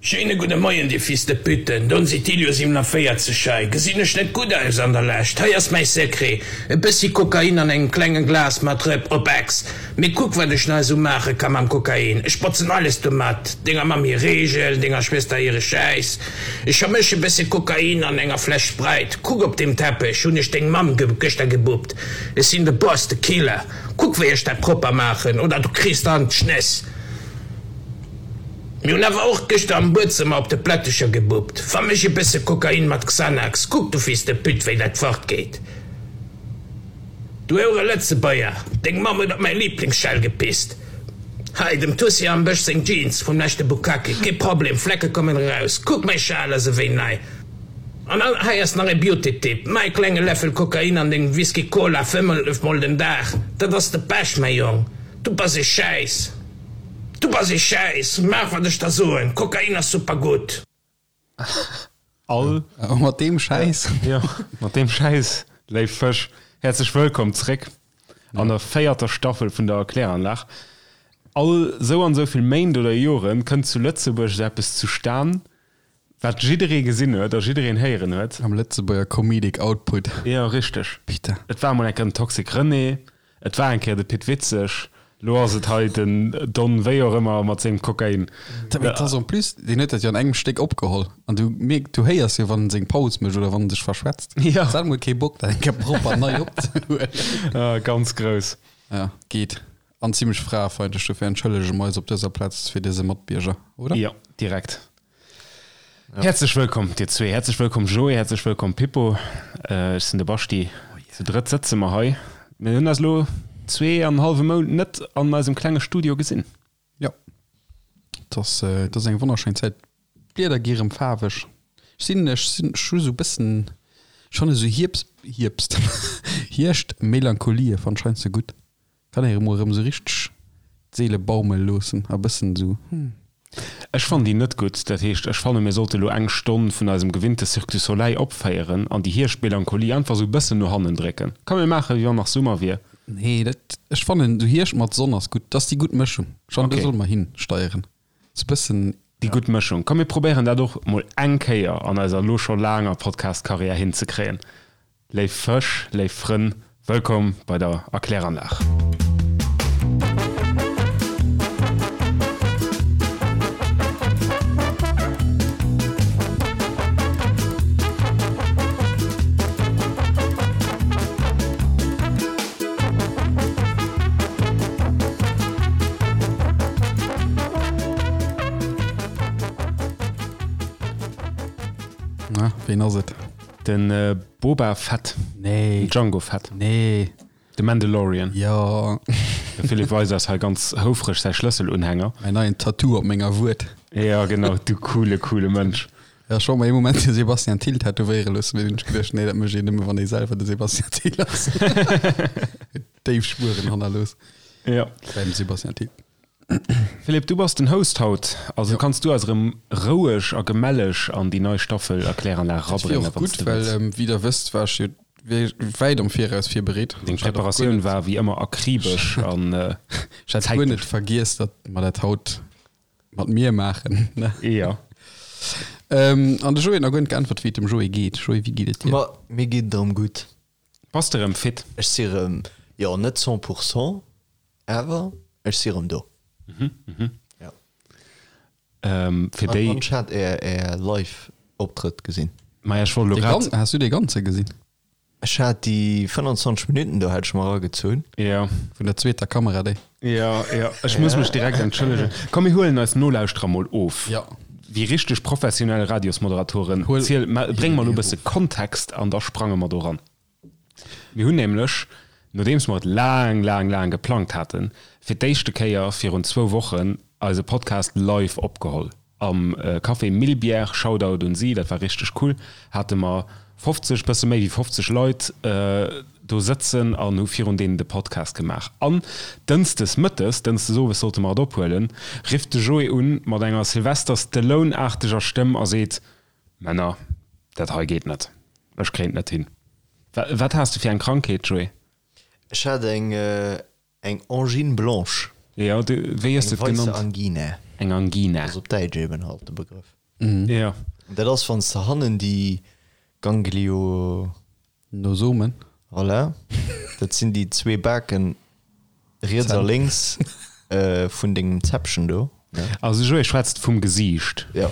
Schéine gudde Moien, dir Fils de Puten, Don Sitilio 47 hei. Gesinn ech net gutt aus an der Lescht? Hei ass mäi Secret, e bëssi Kokain an engem klenge Glas mat Rëpp op Ex. Mee kuck wat ech nach esou maache ka mam Kokain, ech botzen alles domat, denger Mamm hir Reegel, denger Schwëster hire Schäiss. Ech vermësch e bësse Kokain an enger Fläsch Sprite. Kuck op deem Teppech hunn ech deng Mamm gëschter gebuppt. Ech sinn de Boss, de Killer. Kuck wéi ech dat propper maachen oder du kriss der an d'Schnëss. Mir hunn awer och gëschter am Buedzëmmer op de Plättecher gebuppt. Vermësch e bësse Kokain mat Xanax. Kuck du Fils de pute wéi dat fort geet. Du houre Lëtzebuerger, deng Mamm huet op mäi Liiblingsschell gepisst. Hei, dem Tussi am Bësch seng Jeans vum leschte Bukkake, kee Problem, Flecke kommen eraus. Kuck, mäi Schal ass ewéi nei. An hei ass nach e Beauty-Tipp, Maach e klenge Läffel Kokain an deng Whisky Cola 5 mol den Dag, dat ass de Pech, mäi Jong. Du bass e Schäiss. Du bass e Schäiss. Maach wat ech der soen, Kokain ass super gutt. All. A mat deem Schäiss. Jo, mat deem Schäiss, léif Fësch, häerzlech wëllkomm zréck an der véierter Staffel vun der Erkläranlag. All sou an sou vill Méint oder Joren kënnt zu Lëtzebuerg esou eppes zustan, wat jidderee gesinn huet a jiddereen héieren huet. Am Lëtzebuerger Comedic Output. Jo, richteg. Putain. Et war emol eng Kéier den Toxic René, Et war eng Kéier de Pit Witzeg, lo ass et hei den Don wéi och ëmmer mat sengem Kokain. Mee et ass en plus, deen huet dat jo an engem Stéck opgeholl an du mierk, du héiers jo wann en seng Paus mécht oder wann en sech verschwätzt. Jo. Hues alt mol kee Bock dat eng Kéier propper nei opzehuelen. Ah, ganz grouss. Ja, geet. An zimlech fraefeindlech, dofir entschëllege mer eis op dëser Plaz fir dëse Matbierger, oder? Jo, direkt. Häerzlech wëllkomm dir zwee, häerzlech wëllkomm Joé, häerzlech wëllkomm Pippo. Ech sinn de Baschti. Zu drëtt sëtze mer hei. Mir hunn eis elo zwee an en hallwe Mount net an eisem klenge Studio gesinn. Jo, et ass, et ass eng wonnerschéin Zäit. D'Blieder gi rëm faarweg. Ech sinn, ech sinn, ech hu sou e bëssen, ech fanne sou Hierbst, Hierbst, Hierscht-Melancholie fannt ech heiansdo gutt. Kann ee mol erëm sou richteg d'Seele baumele loossen a bëssen sou hm. Ech fannen déi net gutt. Dat heescht, ech fanne mir sollte lo eng Stonn vun eisem gewinnte Cirque du Soleil opféieren an déi Hierschtmelancholie einfach sou bëssen no hannen drécken. Komm mir maache wéi wann nach Summer wier. Nee, dat, ech fannen sou Hierscht mat Sonn ass gutt. Dat ass déi gutt Mëschung. Ech fannen do solle mer hinsteieren. Sou bëssen. Déi gutt Mëschung. Komm mir probéieren dat och mol eng Kéier an eiser lo scho laanger Podcast-Karriär hinzekréien. Léif Fësch, léif Frënn, wëllkomm bei der Erkläranlag. Na, ween ass et? Den Boba Fett. Nee. Den Django Fett. Nee. De Mandalorian. Jo. De Philippe weist eis hei ganz houfreg säi Schlësselunhänger. Mäin neien Tattoo op menger Wued. Ja, genau, du coole, coole Mënsch. Ja, ech wollt mer ee Moment de Sebastian Thill tätowéiere loossen, mee dunn hunn ech geduecht, nee, dat mécht een nëmme, wann ee selwer de Sebastian Thill ass. Déif Spueren hannerlooss. Ja. Beim Sebastian Thill. Philippe, du bass den Host haut, also jo. Kanns du eis erëm roueg a gemelleg an déi nei Staffel Erkläranlag erabréngen, wann s de wëlls. Well, wéi der wësst, war ech jo wäit am Viraus virbereet. Deng Preparatioun war wéi ëmmer akribesch an Ech hat guer net vergiess, datt mer dat haut mat mir maachen. Jo. An de Joé huet nach guer net geäntwert, wéi et dem Joé geet. Joé, wéi geet et dir? Ma mir geet et erëm gutt. Bass de rëm fit? Ech si rëm, jo net 100 pourcent, awer ech si rëm do. Jo. Fir déi. An ech hat är är Live Optrëtt gesinn. Maja, ech wollt elo grad. Has du dee ganze gesinn? Ech hat déi 25 Minutten do hat ech mer eragezunn. Jo. Vun der zweeter Kamera déi. Jo, jo, ech muss mech direkt entschëllegen. Komm mir huelen eis Nolauschterer mol of. Jo. Wéi richteg professionell Radiosmoderatoren, ziel, bréng mer elo e bësse Kontext an da sprange mer do ran. Mir hunn nämlech, nodeems mer et laang, laang, laang geplangt haten, fir d'éischte Kéier virun zwou Wochen eise Podcast live opgeholl am Café Millbière. Shoutout un si, dat war richteg cool. Hate mer 50, bësse méi wéi 50 Leit do sëtzen an hu virun deenen de Podcast gemaach. An dënschdes mëttes, dënschdes owes sollte mer et ophuelen, rifft de Joé un mat enger Sylvester Stallone-aarteger Stëmm a seet, Männer, dat hei geet net, ech kréien et net hin. Wat has de fir eng Krankheet, Joé? Ech hat eng Eng Angine blanche. Jo, du, wéi hues de et genannt? Eng weisse Angine. Eng Angina. Ass op Däitsch eben halt de Begrëff. Ja. Dat ass, wann s de hannen déi Ganglio. Nosomen. Voilà. Dat sinn déi zwee Baken riets a lénks vun dengem Zäppchen do. Also Joé schwätzt vum Gesiicht. Jo,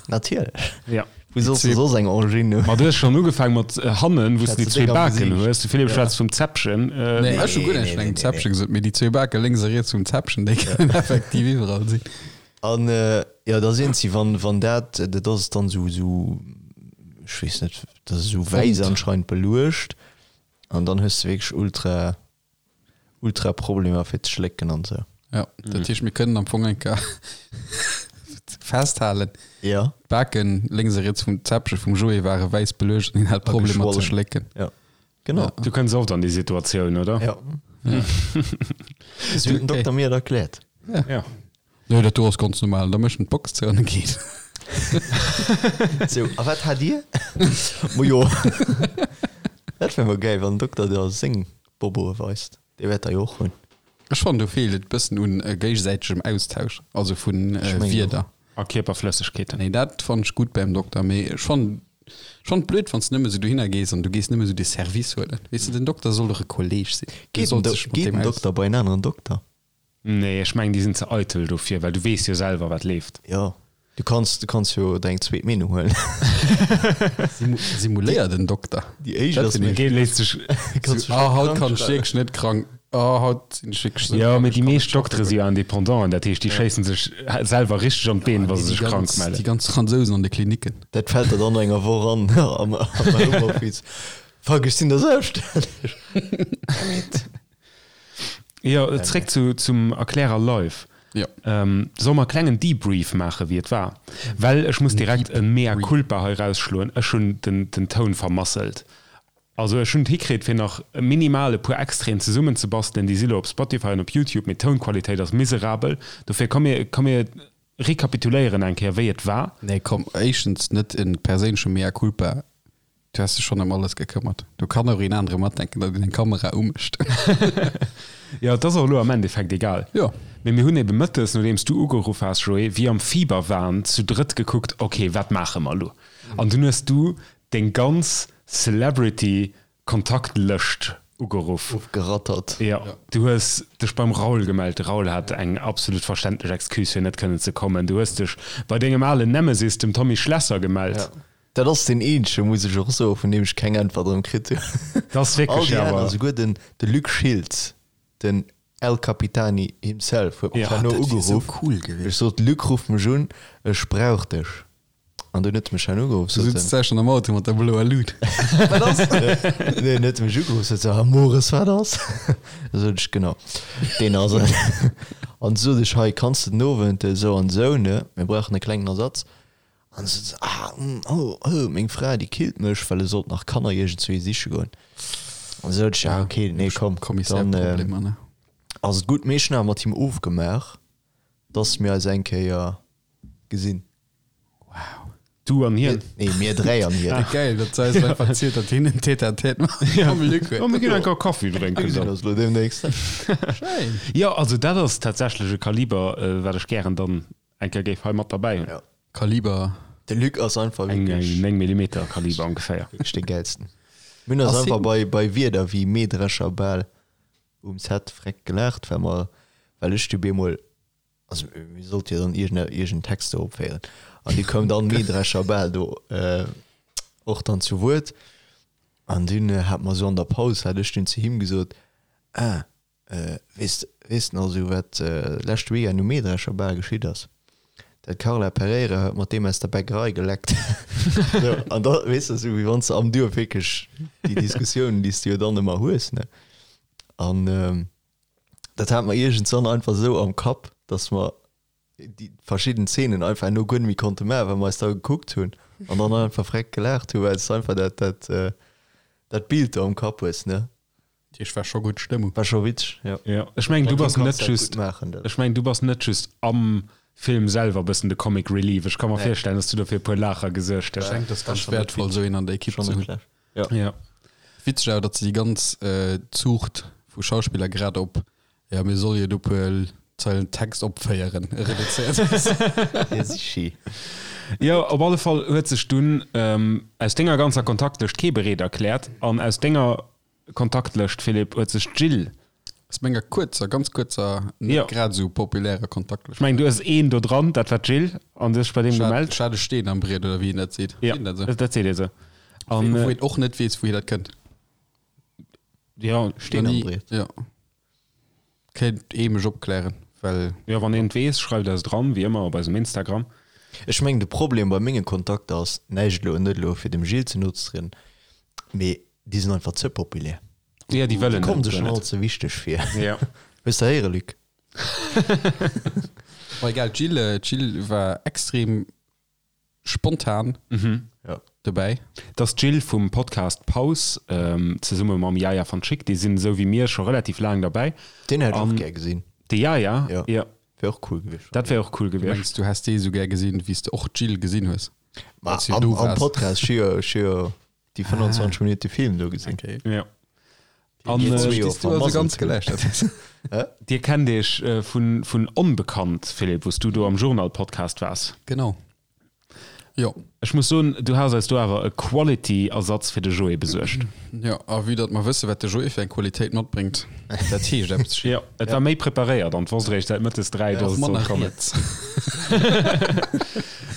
natierlech. Ja. Wou solls de soss eng Angine hunn? Ma du hues schonn ugefaang mat hannen, wou s de déi zwee Baken hues. De Philippe schwätzt vum Zäppchen. Nee, ech hu guer näischt vun engem Zäppchen gesot, mee déi zwee Bake lénks a riets vum Zäppchen, déi kënnen effektiv iwwerall sinn. An jo, da sinn si, wann, wann dat, dat ass dann esou, esou, ech weess net, dat ass esou wäiss anscheinend beluecht an dann hues de wierklech ultra, ultra Problemer fir ze schlécken an esou. Jo, dat heescht, mir kënnen am Fong eng Kéier festhalen, Ja. d'Baken lénks a riets vum Zäppche vum Joé ware wäiss beluecht an hien hat A Problemer ze geschwollen. schlécken. Ja, genau. Du kënns oft an déi Situatioun, oder? Ja. Esou huet den Dokter mir et erkläert. Ja. Nee, dat do ass ganz normal. Da mécht en d'Box zou an e geet. Sou, a wat hat Dir? Majo, dat wär mol gäil, wann den Dokter der seng Boboe weist. Dee wäert der jo och hunn. Ech fannen, do feelt et bëssen un géigesäitegem Austausch, also vu Wierder. A Kierperflëssegkeeten. Nee, dat fannen ech gutt beim Dokter, mee ech fannen ech fannen et blöd, wann s de nëmme sou dohinner gees an du gees nëmme sou de Service huelen. Weess de, den Dokter soll doch e Kolleg sinn. Du Geet den solls dech mat Geet deem den aus. Dokter bei en aneren Dokter? Nee, ech mengen déi sinn ze eitel dofir, well du weess jo selwer wat leeft. Jo, du kanns, du kanns jo der eng zweet Meenung huelen. Simuléier den Dokter. Déi éischt ass méi. Dee léisst sech. Kanns Ah, haut kann ech wierklech net krank. Ah, haut sinn ech wierklech sou Jo, krank, mee ech déi kann net meescht Doktere schaffen si jo goen. Indépendant, dat heescht déi schéissen sech selwer richteg an d'Been, wa se sech krank mellen. Déi ganz Fransousen an de Klinicken. Dat fält der dann no enger Woch an am Homeoffice. Fuck, ech sinn der selbststänneg. Damn it. Jo, zréck zu, zum Erklärer live. Jo. Ähm, soll mer e klengen Debrief maachen, wéi et war? Well ech muss direkt e Mea culpa hei rausschloen, ech hunn den, den Toun vermasselt. Also ech hunn et hikritt, fir nach minimal e puer Extraiten zesummenzebastelen, déi si lo op Spotify an op Youtube, mee d'Tounqualitéit ass miserabel. Dofir komm mir, komm mir rekapituléieren eng Kéier, wéi et war. Nee, komm, éischtens net e perséinleche Mea culpa. Du has dech schonn ëm alles gekëmmert. Do kann och een anere matdenken, datt een eng Kamera umécht. Jo, et ass och elo am Endeffekt egal. Jo. Mee mir hunn ebe mëttes, nodeems du ugeruff has, Joé, wéi am Fieberwahn zu drëtt gekuckt, ok, wat maache mer elo? An dunn hues du deng ganz Celebrity Kontaktlëscht ugeruff. Ofgerattert. Jo, du hues dech beim Raoul gemellt. De Raoul hat eng absolut verständlech Excuse fir net kënnen ze kommen. Du hues dech bei dengem alen Nemesis, dem Tommy Schlesser, gemellt. Ja. Dat ass deen eenzege, muss ech och soen, vun deem ech keng Äntwert erëm kritt hunn. Dat ass wierklech All déi aner, awer. souguer den, de Luc Schiltz, den El Capitani himself, huet mech Ja. herno Dat wier sou ugeruff. cool gewiescht. Ech sot, Luc, ruff mech un, ech brauch dech. An dunn huet e mech herno ugeruff, Du sot sutz en. da schonn am Auto mat der bloer Lut. Wat ass? Nee, en huet mech ugeruff, sot se, Ah, Mores, wat ass? Da sot ech, Genau, deen ass et. An du sot ech, Hei, kanns de den Owend esou an esou, ne, mir brauchen e klengen Ersatz. An se sot, ah, mm, oh, oh, meng Fra, déi killt mech, well e sollt nach Kanner iergendzwéi siche goen. An sot ech, ja, okay, nee, komm, dann Kommissärproblemer, ne? ass et gutt. Mee ech hunn awer mat him ofgemaach, dass mir eis eng Kéier gesinn. Wow. Du an hien? Nee, mir dräi an hien. Geil, datt se eis einfach erzielt, datt hien en Tête-à-tête mam Luc huet. Oh, mir ginn eng Kéier Kaffi drénken Mir gesinn dann. eis elo deemnächst. Schéin. Jo, also dat ass tatsächlech e Kaliber, wat ech gären dann Eng Kéier géif hei mat derbäi hunn. Ja. Kaliber. De Luc ass einfach Eng wierklech. 9 Millimeter Kaliber ongeféier. Wierklech dee gäilsten. Mir hunn eis Ass einfach hien. bei, bei Wierder wéi Mähdrescher bal um Set freck gelaacht, well mer, well ech du bemol, also mir sollte jo dann iergend, iergend Text do opféieren an du koum dann Mähdrescher bal do och dann zu Wuert an dunn hat mer sou an der Paus, hat ech dunn zu him gesot, ah, Weess weess de nach esou wat leschte Weekend um Mähdrescher Bal geschitt ass? Dat Carla Pereira huet mat deem aus der Bäckerei geleckt. Sou, an da weess de esou wéi wann s de am Duerf wierklech déi Diskussiounen déi s de jo dann ëmmer hues ne. An dat hat mer iergendwann einfach esou am Kapp, datt mer déi verschidden Szenen einfach herno guer net méi konnte maachen, well mer eis da gekuckt hunn an dann einfach freck gelaacht hunn, well s de einfach dat dat dat Bild do am Kapp hues ne. Dat heescht, war scho gutt Stëmmung. War scho witzeg, jo. Jo, ech mengen du bass net just, ech mengen du bass net just am Film selwer bëssen de Comic Relief. Ech ka mer virstellen, dass du do fir e puer Laacher gesuergt hues. Ech denken, dat ass ganz wäertvoll, esou een an der Ekipp ze hunn. Jo. Ja. Witzeg awer, datt se déi ganz Zuucht vu Schauspiller grad op, jo mir solle jo do e puer. Zeilen Text opféieren reduzéiert ass. Ja, sichi. Jo, op alle Fall huet sech dunn aus denger ganzer Kontaktlëscht kee bereet erkläert an aus denger Kontaktlëscht, Philippe, huet sech d'Jill. Aus menger kuerzer, ganz kuerzer, net Jo. grad esou populärer Kontaktlëscht. Ech mengen, du hues een do dran, dat war d'Jill, an du hues dech bei deem Ech hat, gemellt. ech hat e Steen am Briet, oder wéi een dat seet. Ja, Seet een dat esou? dat seet ee sou. An, Wou een och net weess, wouhier dat kënnt. ja, Steen am Briet. Ja. Kéint ee mech opklären, well. Jo, wann een et weess, schreift eis et eran, wéi ëmmer op eisem Instagram. Ech mengen de Problem bei menge Kontakter ass näischt elo, net elo fir dem Gilles ze no ze trieden, mee déi sinn einfach ze populär. Ja, déi wëllen Déi kommen dat sech guer schon net. all ze wichteg vir. Ja. Hues de héiere Luc? Ma egal, d'Jill, d'Jill war extrem spontan dobäi. Dat ass d'Jill vum Podcast Paus, zesumme mam Yaya van Schick. Déi sinn esou wéi mir scho relativ laang derbäi. Deen hätt ech och gär gesinn. De Yaya? Jo. Jo. Wär och cool gewiescht. Dat wär och cool Du gewiescht. mengs, du häss dee esou gär gesinn, wéi s de och d'Jill gesinn hues? Ma Als du am, do am waars. Podcast, ech hu jo, ech hu jo déi 25 Minutte Film do gesinn. Okay. Jo. An Déi äh, zwee jo Bis du also vermasselt ganz hunn. geläuschtert hues. dir kennt iech äh, vun, vun Onbekannt, Philippe, wou s du do am Journal-Podcast waars. Genau. Jo. Ech muss soen, du has eis do awer e Quality-Ersatz fir de Joé besuergt. Jo, a vue datt mer wësse wat de Joé fir eng Qualitéit matbréngt, dat heescht eppes. Jo, et war méi preparéiert an wosst eréischt säit mëttes 3, dass Och et sollt manner kommen. riets.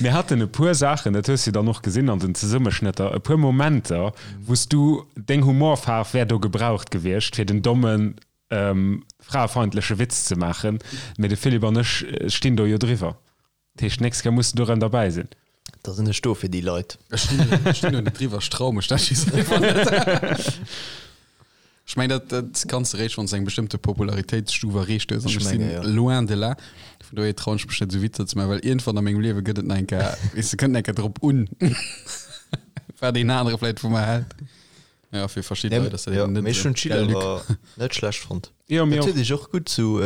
Mir haten e puer Saachen, dat hues du dann och gesinn an den Zesummeschnëtter, e puer Momenter, wou s du, deng Humorfaarf wär do gebraucht gewiescht, fir den dommen, fraefeindleche Witz ze maachen, mee de Philippe an ech stinn do jo driwwer. Dat heescht, d'nächst Kéier muss de do rëm derbäi sinn. Da sinn ech do fir déi Leit. Ech stinn do net driwwer, ech trau mech dat just einfach net. Ech mengen, dat, dat kanns de réischt, wann s de eng bestëmmte Popularitéitsstuf erreecht hues. An Ech ech sinn menge, ja. loin de là. Vun dohier trauen ech mech net, esou Witzer ze maachen, well iergendwann a mengem Liewe gëtt et nach eng Kéier, weess de, kënnt nach eng Kéier drop un, wat een anere vläicht vu mer hält. Ja, fir verschidde Nee, Leit ass dat ja, eben net mee ech esou. hunn d'Jill Gell, Luc? awer net schlecht fonnt. Jo, mir Dat och. huet ech och gutt zu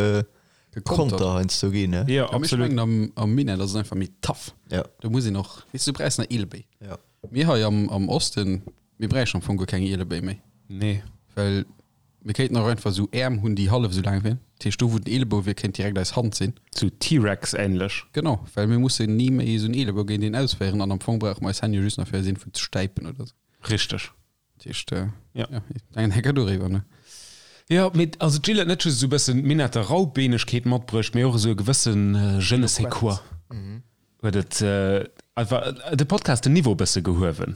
Gekontert. Konter heiansdo ginn, ne? Jo, Ja, mee ech absolut. mengen, am, am Minett ass et einfach méi tough. Ja. Do muss een och, weess du, du brauchs nach Eelebéi. Ja. Mir hei am, am Osten, mir bräichen am Fong guer keng Eelebéi méi. Nee. Well mir kéinten och einfach esou Äerm hunn, déi hallef esou laang wieren. Dat heescht, do wou den Eelebou wier, kéint direkt eis Hand sinn. Sou T-Rex-ähnlech. Genau, well mir mussen ni méi esou en Eelebou géint een ausféieren an am Fong brauche mer eis Hänn jo just nach fir eis iergendwou ze stäipen oder esou. Richteg. Dat heescht, äh, Ja. ja, eng Hecker doriwwer, ne? Jo, mee also d'Jill huet net just esou e bëssen Minetter Raubeenegkeet matbruecht, mee och esou e gewëssen je ne sais quoi. Huet et einfach de Podcast den Niveau e bësse gehuewen.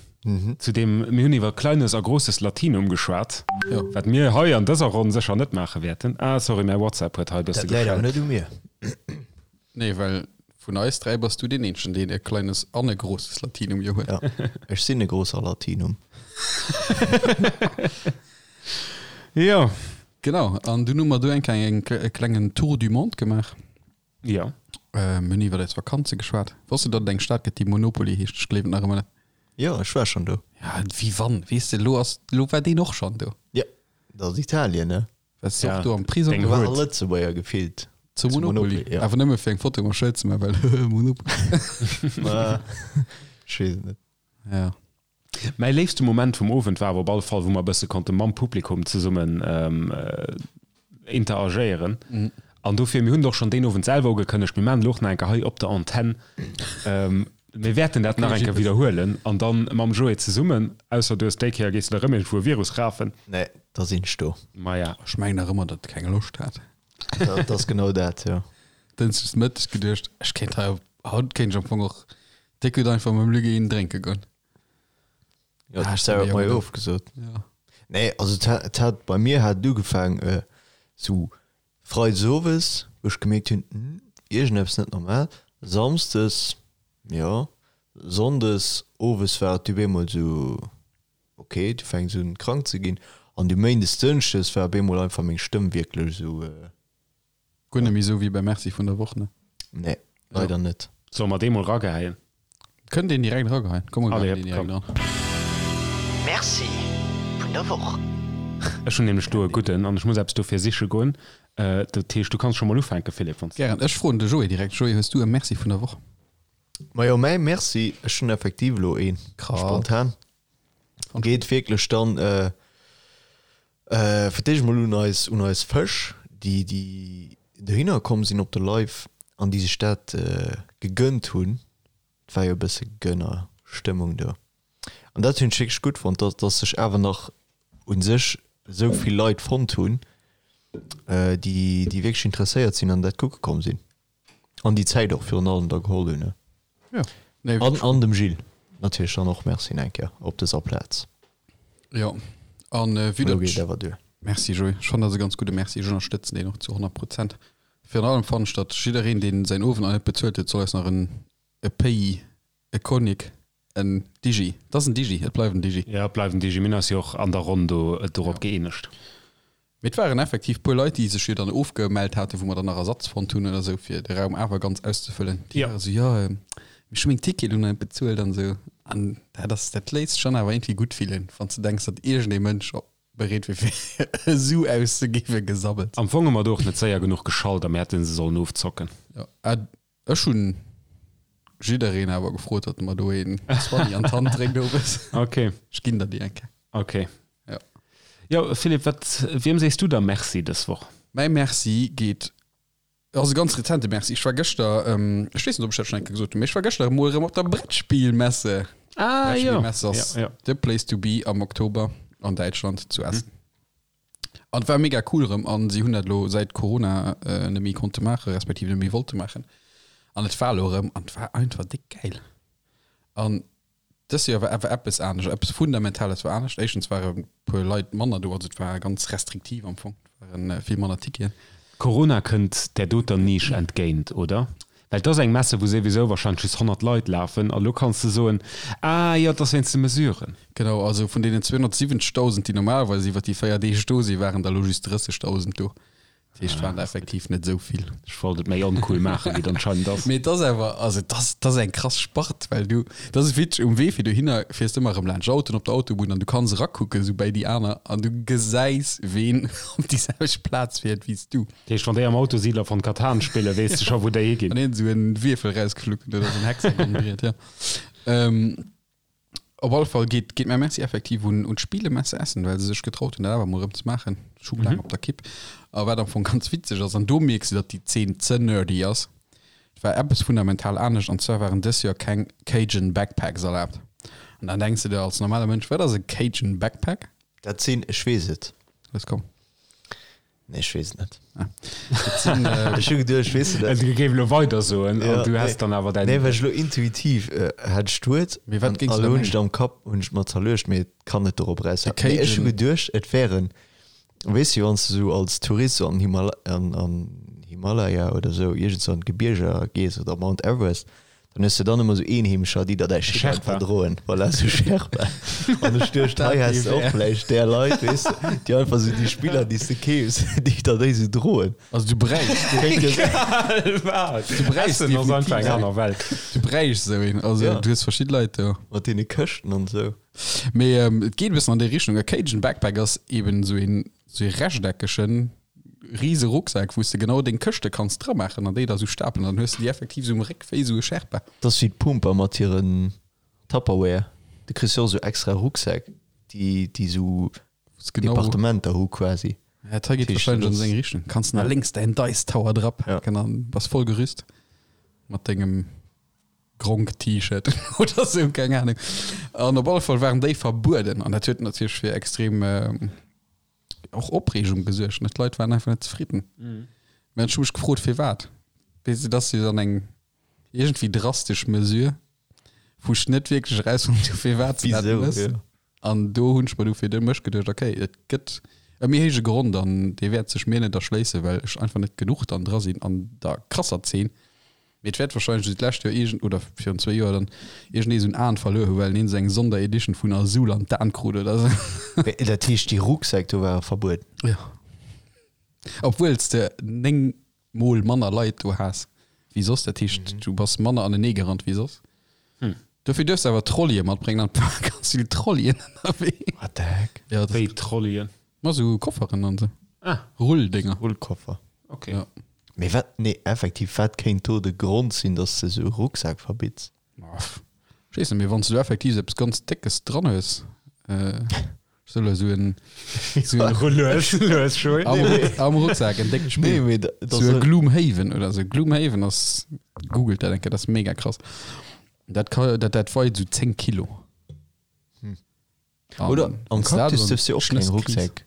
Zu deem, mir hunn iwwer Kleines a Großes Latinum geschwat, Jo. wat mir hei an dëser Ronn sécher net maache wäerten. Ah, sorry, mäi WhatsApp huet hei e bësse Dat läit awer geschellt. net u mir. Nee, well vun eis 3 bass du deen eenzegen, deen e kleines an e großes Latinum jo huet. Ja, ech sinn e großer Latinum. Jo. Genau, an dunn hu mer do eng kleng, eng, e klengen Tour du monde gemaach. Jo. Äh, mir hunn iwwer eis Vakanze geschwat. Wosst du, datt et eng Stad gëtt, déi Monopoly heescht? Ech gleewen et nach ëmmer net. Jo, ech war schonn do. Ja, wéi wann, weess de, elo ass, elo war deen och schonn do. Ja, dat ass Italien, ne? Wars du Ja, och do am Prisong? deng Do war Hood. all Lëtzebuerger gefillt. Zu Zu Monopoly. Monopoly, ja. Awer nëmme fir eng Foto mam Schëld ze maachen, well Monopoly. Ma, ech weess et net. Ja. Mäi léifste Moment vum Owend war awer op alle Fall, wou mer e bësse konnte mam Publikum zesummen interagéieren. An dofir, mir hunn et och schonn deen Owend selwer ugekënnegt, mir maachen elo och nach eng Kéier hei op der Antenn, mir wäerten dat nach eng Kéier widderhuelen an dann mam Joé zesummen, ausser du hues déi Kéier, gees de da rëm iergendwou e Virus rafen. Nee, da sinn ech do. Maja. Ech mengen nach ëmmer, datt e keng Loscht hat. Dat ass genau dat, jo. Dënschdes Mëtteg geduecht, ech kéint hei, haut kéint ech am Fong och déck gutt einfach mam Luc een drénke goen. Jo, Ah, d'Sarah stimmt, huet ja, mer jo genau. ofgesot. Ja. Nee, also et hat, et hat, bei mir hat et ugefaang sou Freides owes, wou ech gemierkt hunn, hm, iergendeppes net normal. Samsdes, jo, Sonndes owes war et du bemol sou, ok, du fänks un krank ze ginn. An du Méindes, Dënschdes war bemol einfach meng Stëmm wierklech sou. Guer net méi sou wéi bei Merci vun der Woch, ne? Nee, leider net. Solle mer dee mol rageheien? Kënnt een direkt erageheien. Komm, mer Allez, geheien deen direkt komm. eran. Merci vun der Woch. Ech hunn nämlech do e gudden an ech muss eppes dofir siche goen. Dat heescht, du kanns scho mol ufänken, Philippe, wann s Gären. Ech froen de Joé direkt. Joé, hues du e Merci vun der Woch? Majo, mäi Merci, ech hunn effektiv elo een, Krass. spontan. Geet wierklech dann fir d'éischt mol un eis, un eis Fësch, déi, déi. dohinner komm sinn op de Live an déi sech dat gegënnt hunn. Et war jo e bësse Gönnerstëmmung do. An dat hunn ech wierklech gutt fonnt, dass, dass sech awer nach u sech esou vill Leit fonnt hunn, déi, déi wierklech interesséiert sinn an dat kucke komm sinn. An déi Zäit och virun allem da geholl hunn. Ja. Nee, an, an dem Gilles natierlech dann och Merci eng Kéier op dëser Plaz. Ja. An äh, wéi dat. Geet awer duer. Merci Joé. Ech fannen dat e ganz gudde Merci. Ech ënnerstëtzen deen och zu 100 Prozent. Virun allem fannen ech, datt jiddereen, deen säin Owend nach net bezuelt huet, soll eis nach en e Pays, e Cognac, en Digi. Et ass en Digi, et bleift en Digi. Ja, et bleift en Digi. Mir hunn eis jo och an der Ronn do dorop gëeenegt. Mee et waren effektiv puer Leit, déi sech jo dann ofgemellt haten, wou mer dann nach Ersatz fonnt hunn oder esou, fir de Raum awer ganz auszefëllen. Déi ware sou, jo, ech hu meng Tickete lo nach net bezuelt an esou. An dat ass, dat léisst sech dann awer iergendwéi gutt fillen, wann s de denks, datt iergendee Mënsch bereet wier, fir e Su auszegi fir Gesabbels. Am Fong hu mer do och net séier genuch geschalt a mir hätte se sollen ofzocken. Jo, ech hunn jiddereen awer gefrot, datt e mer do een Zwanni an d'Hand dréckt owes. Ok. Ech ginn der déi eng Kéier. Ok. Jo. Jo, Philippe, wat, wiem sees du da Merci dës Woch? Mäi Merci geet, ass e ganz rezente Merci. Ech war gëschter, ech weess net, ob ech dat schonn eng Kéier gesot hunn, mee ech war gëschter emol erëm op der Brettspielmesse. Ah, jo. Brettspielmesse ass Ja, ja. the place to be am Oktober an Däitschland zu Essen. An et war mega cool erëm an si hunn dat elo säit Corona net méi konnte maachen, respektiv net méi wollte maachen. An et war elo erëm an et war einfach déck gäil. An dëst Joer war awer eppes anescht, eppes Fundamentales war anescht. Éischtens ware e puer Leit manner do, also et war ganz restriktiv am Fong, et ware vill manner Ticketen. Corona kënnt där doter Nisch entgéint, oder? Well et ass eng Messe, wou souwisou wahrscheinlech just 100 Leit lafen a lo kanns de soen, ah jo, et ass wéinst de Mesuren. Genau, also vun deenen 270.000, déi normalerweis iwwer déi 4 Deeg do sinn, waren der elo just 30.000 do. Dat heescht, et waren der effektiv net esou vill. Ech wollt et méi oncool maachen, wéi et anscheinend ass. Mee et ass awer, also et ass, et ass eng krass Spart, well du, et ass witzeg, um Wee fir dohinner fiers de ëmmer erëm laanscht Autoen op der Autobunn an du kanns erakucken, esou bäi déi aner, an du gesäis, ween op déi selwecht Plaz fiert wéi s du. Dat heescht, wann déi am Auto Siedler von Catan spillen, weess de scho wou déi higinn. Wann een esou en Wierfel rausgefluckt huet oder esou en Hexagonbriet, jo. Ähm, op alle Fall geet, geet mäi Merci effektiv un, un d'Spielemesse Essen, well se sech getraut hunn, dat awer emol erëm ze maachen. Ech hu laang op der Kipp. A wat am Fong ganz witzeg ass, an do mierks de, datt déi Zeen ze nerdy ass, et war eppes fundamental anescht, an zwar waren dës Joer keng Cajun Backpacks erlaabt. An dann denks de der als normale Mënsch, wat ass e Cajun Backpack? Dat sinn, ech weess et. Lass komm. Nee, ech weess et net. Ah. Dat sinn, äh, Ech hu geduecht, ech weess et net. Du géif elo weider soen Ja, an du nee. häss dann awer däin. Nee, well ech elo intuitiv äh, hätt ech d'Wuert Mee wat an géings du elo da hunn ech mengen? et am Kapp, hunn ech et mer zerluecht, mee et kann net dorop De eraushauen. Nee, ech hu Cajun. geduecht, et wären, weess du, wann s du sou als Tourist sou an Himal an, an Himalaya oder sou iergendsou an d'Gebierger gees oder Mount Everest, Dann hues de dann ëmmer sou Eenheemescher, déi der däi Shit Sherpa. einfach droen. Voilà, sou Sherpa. An ech duecht, hei häss de och vläicht där Leit, weess de, déi einfach sou déi Spiller, déi s de keefs, déi der déi sou droen. Also du bräichs. Kéint jo sinn. Wat? Du bräichs Essen ass einfach eng definitiv aner Welt. Du bräichs esou een. Also Ja. du hues verschidde Leit do. Mat deene Këschten an sou. Mee et geet e bëssen an déi Richtung. E Cajun Backpack ass eben sou een, sou ee rechteckegen Riese Rucksak, wou s de genau deng Këschte kanns dramaachen an déi da sou stapelen. Dann hues de déi effektiv sou um Réck wéi sou e Sherpa. Dat ass wéi d'Pumper mat hiren Tupperware. Du kriss jo och sou extra Rucksäck, déi, déi sou Genau. Departementer hu quasi. Ja, dat hei geet Heescht, wahrscheinlech an dat seng Richtung. Kanns na lénks däin Dice Tower drapaken an bass voll gerüst mat dengem Gronk-T-Shirt oder sou, keng Ahnung. An op alle Fall waren déi verbueden an dat huet natierlech fir extrem och Opreegung gesuergt, ne? D'Leit waren einfach net zefridden. Mhm. Mä ech hu mech gefrot, firwat. Weess de, dat ass jo dann eng iergendwéi drastesch Mesure, wou ech net wierklech erausfonnt hu firwat se dat Wisou, mëss. ja. An do hunn ech mer du fir de mech geduecht, okay, et gëtt e méi héije Grond an dee wäert sech mir net erschléissen, well ech einfach net genuch dann dra sinn an der krasser Zeen. Mee et wäert wahrscheinlech wéi d'lescht Joer iergend, oder virun zwéi Joer dann, iergendee esou en Aen verluer hu well en esou eng Sonderedition vun Azul an d'Aen krut oder esou. Mee dat heescht déi Rucksäck do ware verbueden? Jo. Obwuel s de 9 mol manner Leit do has wéi soss, dat heescht du bass manner anenee gerannt wéi soss. Dofir duerfs de awer Trolleyen matbréngen an et ware ganz vill Trolleyen ënnerwee. What the heck? Jo, dat Wéi Trolleyen? Ma sou Kofferen an sou. Ah. Rulldénger. Rullkoffer. Ok. Ja. Mee wat, nee, effektiv, wat kéint do de Grond sinn, dass de sou e Rucksak verbitts? Ma pff, ech weess net, mee wann s du effektiv sou eppes ganz Déckes dran hues, äh, ech Sou elo sou en, sou en Lues, lues, Joé. am, Ruck, am Rucksak, en déckt Nee, Spill. mee dat Sou e ass Gloomhaven oder sou. Gloomhaven ass, googelt dat eng Kéier, dat ass mega krass. Dat ka, dat, dat weit sou 10 Kilo. Hm. An Oder am wann's dat Cactus an duerfs du och keng Schnëss kriss- Rucksäck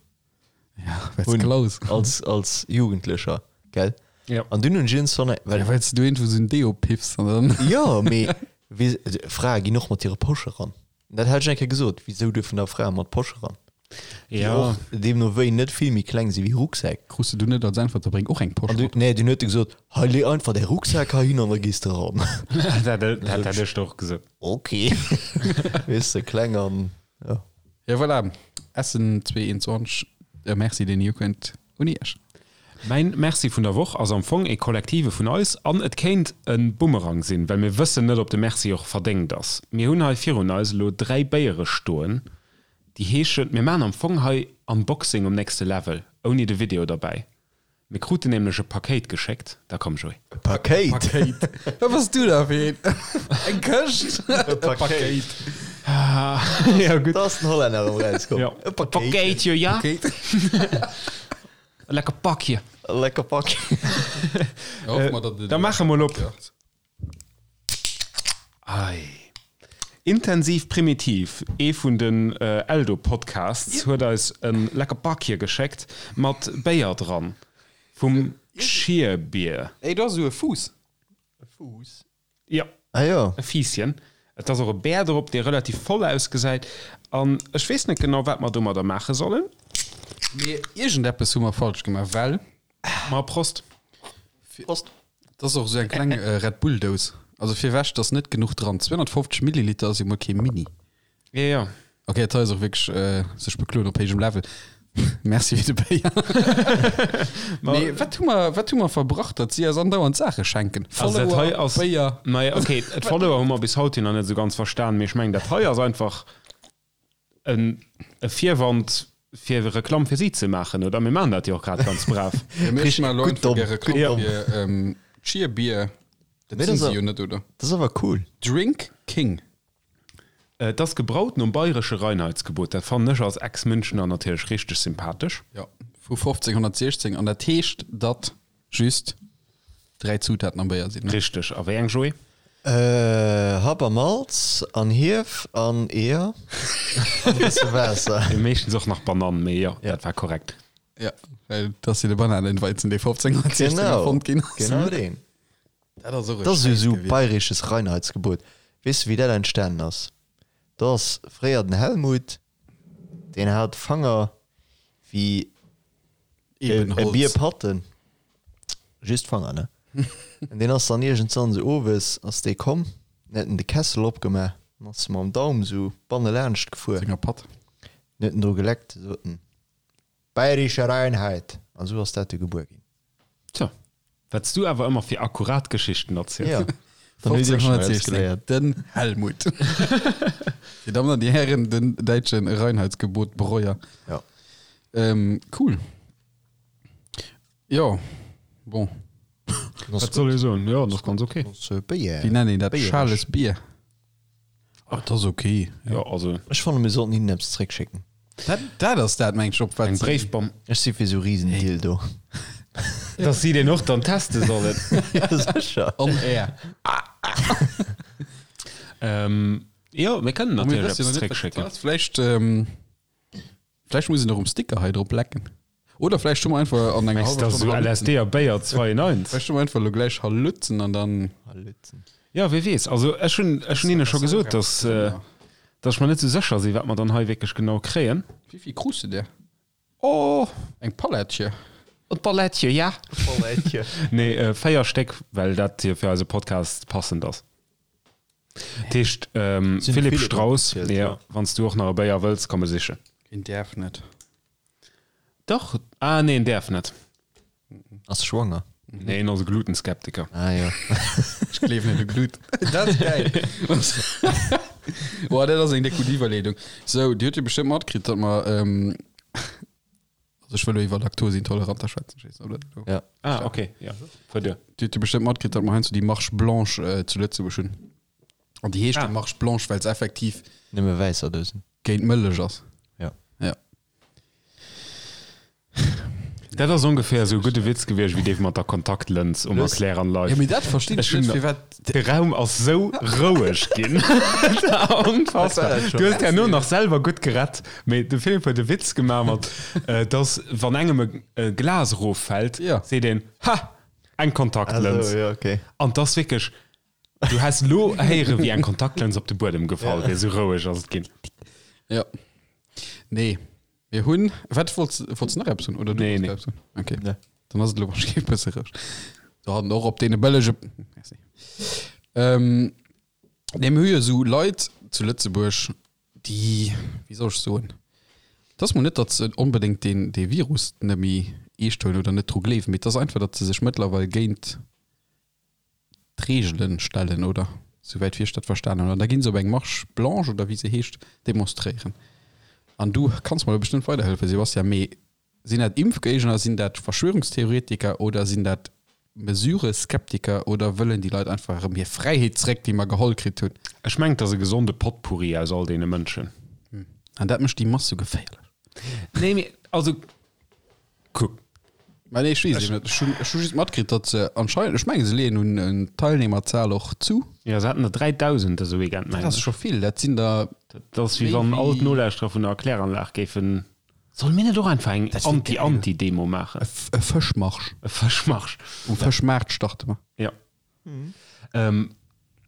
Ja, weil's hunn. klaus. Als, als Jugendlecher, gell? Ja. An dunn hunn ech iergendwann, well Ja, weil's du iergendwou sou en Deo piffs an dann. Jo, mee wéi, Frae ginn och mat hire Posche ran. Dat hat ech eng Kéier gesot, wisou duerfen da Frae mat Posche ran? Déi Ja. och deemno wéi net vill méi kleng si wéi Rucksäck. Krus de du net als Äntwert, da bréng och eng Posch An du, mat. nee, dunn huet e gesot, hei lee einfach däi Rucksak heihin an da gees de ran. Dat dat hätt ech der och gesot. Ok. Weess de, kleng an, ja. Ja, voilà. Essen 221, e Merci deen Jugend un Iech. Mäin Merci vun der Woch ass am Fong ee kollektive vun eis an et kéint e Bumerang sinn, well mir wëssen net, ob de Merci och verdéngt ass. Mir hunn hei virun eis elo 3 Béiere stoen, déi heeschen, mir maachen am Fong hei Unboxing um nächste Level, ouni de Video derbäi. Mir kruten nämlech e Pakéit geschéckt. Da komm Joé. E Pakéit? Pakéit. Wat bass du da fir een? Eng Këscht? E Pakéit. Ja gutt. Da ass den Hollänner erëm rauskomm. Ja. E Pakéitchen. Pakéitje, ja. Pakéit. E lecker Pakje. E lecker Pak. Ja, hoffe mer, datt et Da maache mol op. Ei. Intensiv Primitiv, ee vun den Eldo-Podcasts, huet eis e lecker Bakje geschéckt mat Béier dran vum Cheerbier. Ey, do ass esou e Fuuss. E Fuuss? Jo, Ah jo. e Fiisschen. Et ass och e Bär drop, dee relativ voll ausgesäit. An ech weess net genau, wat mer domadder maache sollen. Mee iergendeppes hu mer falsch gemaach, well. Ma Prost! Prost! Dat ass och esou eng kleng Red Bull Dous. Also firwech, et ass net genuch dran. 250 Milliliter ass jo mol kee Mini. Jo, jo. Ok, dat hei ass och wierklech sech bekloen op héijem Level. Merci fir de Béier. Mee wat hu mer, wat hu mer verbrach, datt si eis andauernd Saache schenken? Also dat hei Follower, ass, Béier. Naja, ok, d'Follower hu mer bis haut hin nach net esou ganz verstan, mee ech mengen, dat hei ass einfach en e Virwand fir Reklamm fir si ze maachen, oder? Mir maachen dat jo och grad ganz brav. Ja, mir Richtig, maachen elo gutt einfach domm, gär Reklamm gutt domm. fir ähm, Cheer Beer. Dat Mee sinn dat si ass jo net, oder? Dat ass awer cool. Drink King. Et ass gebraut nom bayresche Reinheitsgebot. Dat fannen ech als Ex-Münchener natierlech richteg sympathesch. Jo, vu 1516. An dat heescht, datt just 3 Zutaten am Béier sinn, ne? Richteg. A wéi eng, Joé? Happ a Malz an Hief an Eeër an e bësse Waasser. Meeschtens och nach Banann, mee jo, dat war korrekt. Ja, well dat ass jo de Bananenweizen, dee 1516 erfonnt ginn ass. Genau deen. Dat ass och e Dat ass jo Schäiss esou gewiescht. bayresches Reinheitsgebot. Weess de wéi dat entstanen ass? Do ass fréier den Helmut, deen hat Fanger wéi e Ebenholz. Bierpatten, just Fanger, ne? An deen ass dann iergendwann esou owes ass dee komm, en huet en de Kessel opgemaach an ass mam Daum esou bannelaanscht gefuer, Senger Patt. en huet en dru geleckt, sot en, Bayerische Reinheit! An esou ass dat du gebuer ginn. Tjo, wat s du awer ëmmer fir akkurat Geschichten erziels. Ja, dann hutt Dir schon eppes 1516, geléiert. den Helmut. Dir Dammen an Dir Hären, den däitsche Reinheitsgebot Breuer. Ja. Ähm, cool. Jo, bon. Wat soll ech soen? Jo, dat ass ganz ok. Wéi nennen een dat? Schales Bier? Oh, dat ass ok. Jo, also. Ech fannen, mir sollten hinnen eppes zréckschécken. Dat, dat ass dat, meng ech, op wat Eng Bréifbomm. Ech si fir sou Riesendildo. Dass si deen och dann teste sollen. Ja, sécher. On air. Ähm, jo, mir kënnen Mir natierlech wëssen jo eppes nach net, wat dat zréckschécken. ass. Vläicht, ähm, vläicht muss een och um Sticker hei drop lecken. Oder vläicht hu mer einfach an enger Mengs hallwer du, Stonn sou Halutzen. LSD a Béier 2 in 1? Vläicht hu mer einfach elo gläich Halutzen an dann. Halutzen. Ja, wie weess. Also ech hunn ech hunn hinne scho gesot, dass, äh, dass ech mer net sou sécher sinn, wat mer dann hei wierklech genau kréien. Wéi vill krus de der? Oh! Eng Palettche. E Palettche, ja. Palettche. Nee, äh, 4 Stéck, well dat hier fir eise Podcast passend ass. Dat heescht, ähm, Sinn Philipp Philipp Strauss, opgezielt, ja, ja. wann s du och nach e Béier wëlls, komm e sichen. Een däerf net. Dach, ah nee, en däerf net. Ass schwanger. Nee, en ass e Glutenskeptiker. Ah jo. Ech gleewen net u Gluten. Dat ass geil. Boah, dat ass eng déck gutt Iwwerleedung. Sou, Dir hutt jo bestëmmt matkritt, datt mer, ähm, also ech wëll elo iwwer Laktosintoleranter schwätzen, ech weess net, ob dat elo. Ja. Ah, okay, ja. Fuer duer. Dir hutt jo bestëmmt matkritt, datt mer heiansdo déi Marche Blanche äh, zu Lëtzebuerg hunn. An déi heescht Ah. jo Marche Blanche, well se effektiv Nëmme wäisser Dousen. géint Mëllech ass. Ja. Ja. Dat ass ongeféier esou e gudde Witz gewiescht wéi dee mat der Kontaktlëns um Erkläranlage. Jo, mee dat verstinn ech net, firwat. De Raum ass sou roueg ginn. Onfassbar. Du hues herno nach selwer gutt gerett, mee de Philippe huet e Witz gemaach mat, dass wann engem e Glas eroffält, seet een, Ha! Eng Kontaktlëns. An 't ass wierklech, du häss elo héiere wéi eng Kontaktlëns op de Buedem gefall wier, sou roueg ass et ginn. Jo. Nee. Mir hunn, wat wollts, wollts nach eppes hunn oder du Nee, wollts nee. eppes hunn? Okay. Nee. Dann ass et elo wahrscheinlich e bësse roueg. Do hatten och op deene bëllege. Merci. Ähm, nee, mir hu jo esou Leit zu Lëtzebuerg, déi, wéi soll ech soen, et ass mol net, datt se onbedéngt deen, dee Virus net méi eescht huelen oder net dru gleewen, mee et ass einfach, datt se sech mëttlerweil géint d'Reegelen stellen, oder? Souwäit wéi ech dat verstanen hunn. An da ginn se op eng Marche blanche, oder wéi se heescht, demonstréieren. An du kanns mer do bestëmmt weiderhëllefen, Sebastian, mee sinn dat Impfgéigner, sinn dat Verschwörungstheoretiker oder sinn dat Mesureskeptiker oder wëllen déi Leit einfach erëm hir Fräiheet zréck, déi mer geholl kritt hunn? Ech mengen, et ass e gesonde Potpourri aus all deene Mënschen. An dat mécht déi Mass sou geféierlech. Nee, mee also Kuck. Mä nee, ech weess et net. Ech hunn, ech hu just matkritt, datt se anscheinend, ech mengen, se leeën un un d'Teilnehmerzahl och zu. Jo, se haten der 3.000 dëse Weekend, Dat mengen ass ech. scho vill. Dat sinn der Dat ass wéi méi wann all wéi. d'Nolauschterer vun der Erkläranlag géifen. Solle mir net och einfach eng Dat wier geil. Anti-Anti-Demo maachen? E F e Fëschmarsch. E Fëschmarsch. Um Fëschmaart starte mer. Jo.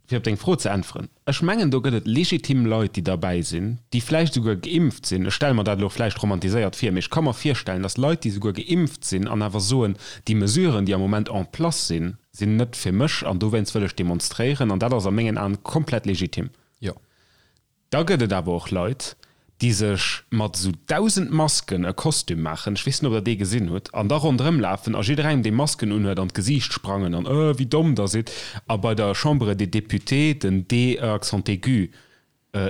Fir op deng Fro ze äntweren, Ech mengen, do gëtt et legitim Leit, déi derbäi sinn, déi vläicht esouguer geimpft sinn. Ech stelle mer dat elo vläicht romantiséiert vir, mee ech ka mer virstellen, datt Leit, déi esouguer geimpft sinn an awer soen, déi Mesuren, déi am Moment en place sinn, sinn net fir mech an dowéinst wëll ech demonstréieren. An dat ass a mengen Aen komplett legitim. Jo. Da gëtt et awer och Leit, déi sech mat esou 1.000 Masken e Kostüm maachen, ech weess net, ob der dee gesinn hutt, an da ronderëm lafen a jidderengem, dee Masken unhuet, an d'Gesiicht sprangen an Öh, wéi domm der sidd! a bei der Chambre des Députés den D accent aigu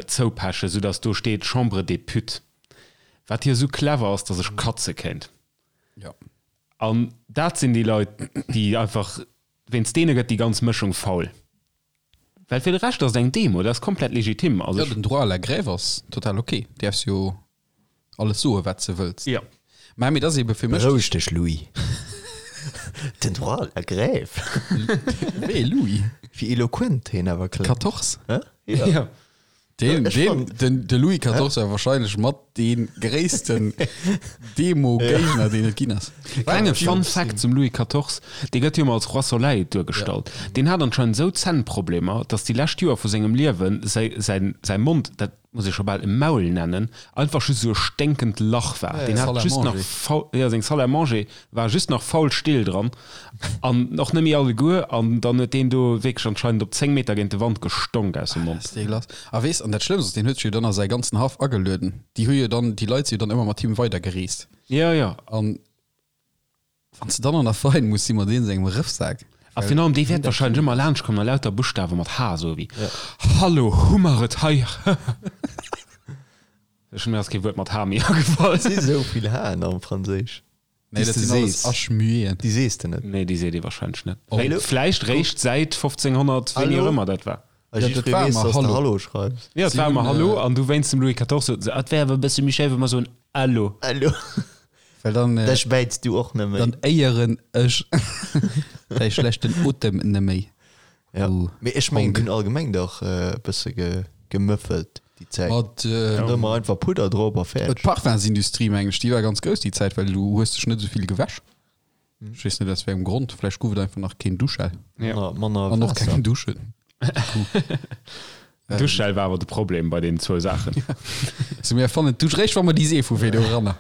zoupechen, soudass do steet Chambre des Putes, wat jo esou clever ass, dass ech katze kéint. Jo. An dat sinn déi Leit, déi einfach, wéinst deene gëtt déi ganz Mëschung faul. Well fir de Rescht ass et eng Demo, dat ass komplett legitim. Also Jo, den Droit à la grève ass total ok. Däerfs jo alles soen, wat s de wëlls. Jo. Mä mee et ass ebe fir mech. Beroueg dech, Louis. Den Droit à la grève. Wee Louis? Wéi eloquent heen awer kléngt. Quatorze? Hä? Jo. Deen, Ech deen, fand- den, de Louis XIV war wahrscheinlech mat dee gréissten Demo-Géigner, deen et ginn ass. Klenge Fun Fact zum Louis XIV, dee gëtt jo ëmmer als Roi Soleil duergestallt. Deen hat anscheinend esou Zännproblemer, datt déi lescht Joer vu sengem Liewe säi, säin, säi Mond, dat muss ee scho bal e Maul nennen, einfach just esou e sténkend Lach war. Deen Salle hat à just nach manger. faul, jo, seng Salle à manger war just nach faul Still dran an och net méi alleguer an dann huet deen do wierklech anscheinend op 10 Meter géint de Wand gestonk aus dem Mond. Ass déi lass. A weess, an dat Schlëmmst ass, deen huet sech jo dann a säi ganzen Haff agelueden. Déi hu jo dann, déi Leit si jo dann ëmmer mat him weidergereest. Jo, jo. An wann s de dann an der Fein muss si mat deem sengem Rëffsak. A virun allem, dee wäert wahrscheinlech ëmmer laanscht kommen a lauter Buschtawe mat H soe wéi Hallo, hu mer et hei. Ech, mir ass kee Wuert mat H méi agefall. Et si sou vill H'en am Franséisch. Nee, dat sinn alles H-mueten. Déi sees de net. Nee, déi seet ee wahrscheinlech net. Oh. Vläicht réischt säit 1500, wéini och ëmmer dat war. A Ja, dat jiddweree war weess, ëmmer dass de Hallo. Hallo schreifs. Jo, et Si war ëmmer hunn, Hallo äh, an du wéinst dem Louis XIV soten se, et wär awer e bësse méi schéi, wa mer soen Allo. Allo. Well dann, äh, Dech bäits du och net méi. dann éieren ech däi schlechten Otem neméi. Ja. Du Mee ech mengen, Honk. déi hunn allgemeng dach e bësse ge, gemëffelt déi Zäit. Mat, äh, Dann ëmmer einfach Pudder drop a fäerdeg. D'Parfumsindustrie, mengen ech, déi war ganz grouss déi Zäit, well du hues dech net esou vill gewäsch. Ech weess net aus wéi engem Grond, vläicht gouf et einfach nach keen Duschgel. Ja. Manner, manner An och Waasser. keng Duschen. Duschgel war awer de Problem bei deenen zwou Saachen. So, mir erfannen d'Dusch réischt, wa mer déi Seef hu fir do eranner.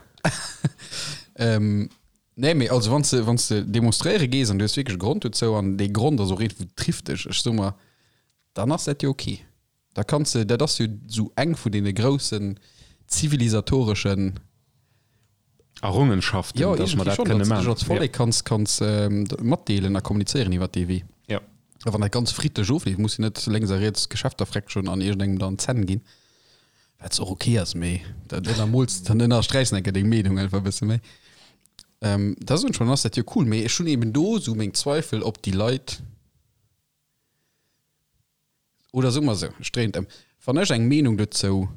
ähm, nee, mee also wann s de, wann s de demonstréiere gees an du hues wierklech e Grond dozou an dee Grond ass och eent, wou trifft dech, ech so mer, dann ass dat jo ok. Da kanns de, dat ass jo sou eng vun deene groussen zivilisatoreschen Errungenschaften, Jo, dass mer iergendwéi dat schonn, kënne datt s de dech maachen. als Vollek kanns, kanns matdeelen a kommunizéieren iwwer dee Wee. Ja. A wann dat ganz friddlech ofleeft, muss jo net lénks a riets Geschäfter freckschen an iergendengem dann d'Zänn ginn, wat och ok ass, mee dat ënnermools, dann ënnersträichs de enke deng Meenung einfach e bësse méi. Da soen ech mer, dann ass dat jo cool, mee ech hunn eben do sou meng Zweifel, ob déi Leit, Oder soe mer esou, ech dréien et ëm, Wann ech eng Meenung dozou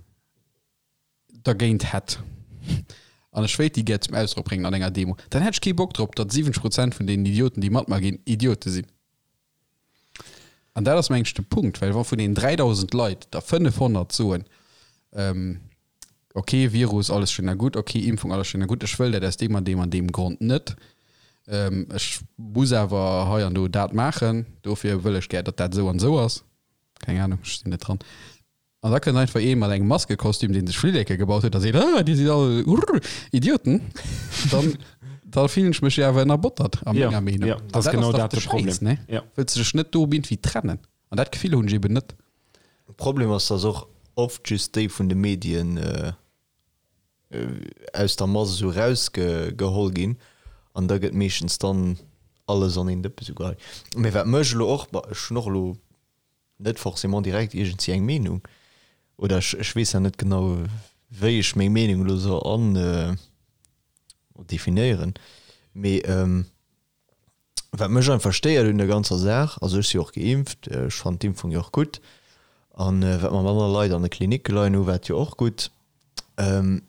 dergéint hätt. An ech wéilt déi gär zum Ausdrock bréngen an enger Demo, dann hätt ech kee Bock drop, datt 70 Prozent vun deenen Idioten, déi mat mer ginn, Idiote sinn. An dat ass, mengen ech, de Punkt, well wa vun den 3.000 Leit der 500 soen, ok, Virus, alles schön a gutt, ok, Impfung, alles schön a gutt, ech wëll dat aus deem an deem an deem Grond net, ech muss awer hei an do dat maachen, dofir wëll ech gär, datt dat esou an esou ass, keng Ahnung, ech sinn net dran. An da kënnt einfach ee mat engem Maskekostüm, dee sech Flilleke gebaut huet a seet, ah, dir sidd all urr, Idioten. Dann, da fillen ech mech jo awer ënnerbottert a menger Meenung. Ja, dat ass genau dat de Problem. Ne? Ja. Wëlls de dech net do iergendwéi trennen? An dat Gefill hunn ech eben net. De Problem ass, dass och oft just déi vun de Medien aus der Mass esou erausgeholl ginn an da gëtt meeschtens dann alles an een Dëppe sou geheit. Mee wat mech elo och, bon ech hunn och elo net forcément direkt iergendwéi eng Meenung oder ech, ech weess ja net genau wéi ech meng Meenung elo soll an definéieren, mee wat mech einfach stéiert un der ganzer Saach, also ech si jo och geimpft, ech fannen d'Impfung jo och gutt an wat mer manner Leit an de Klinicke leien hu wat jo och gutt. Mee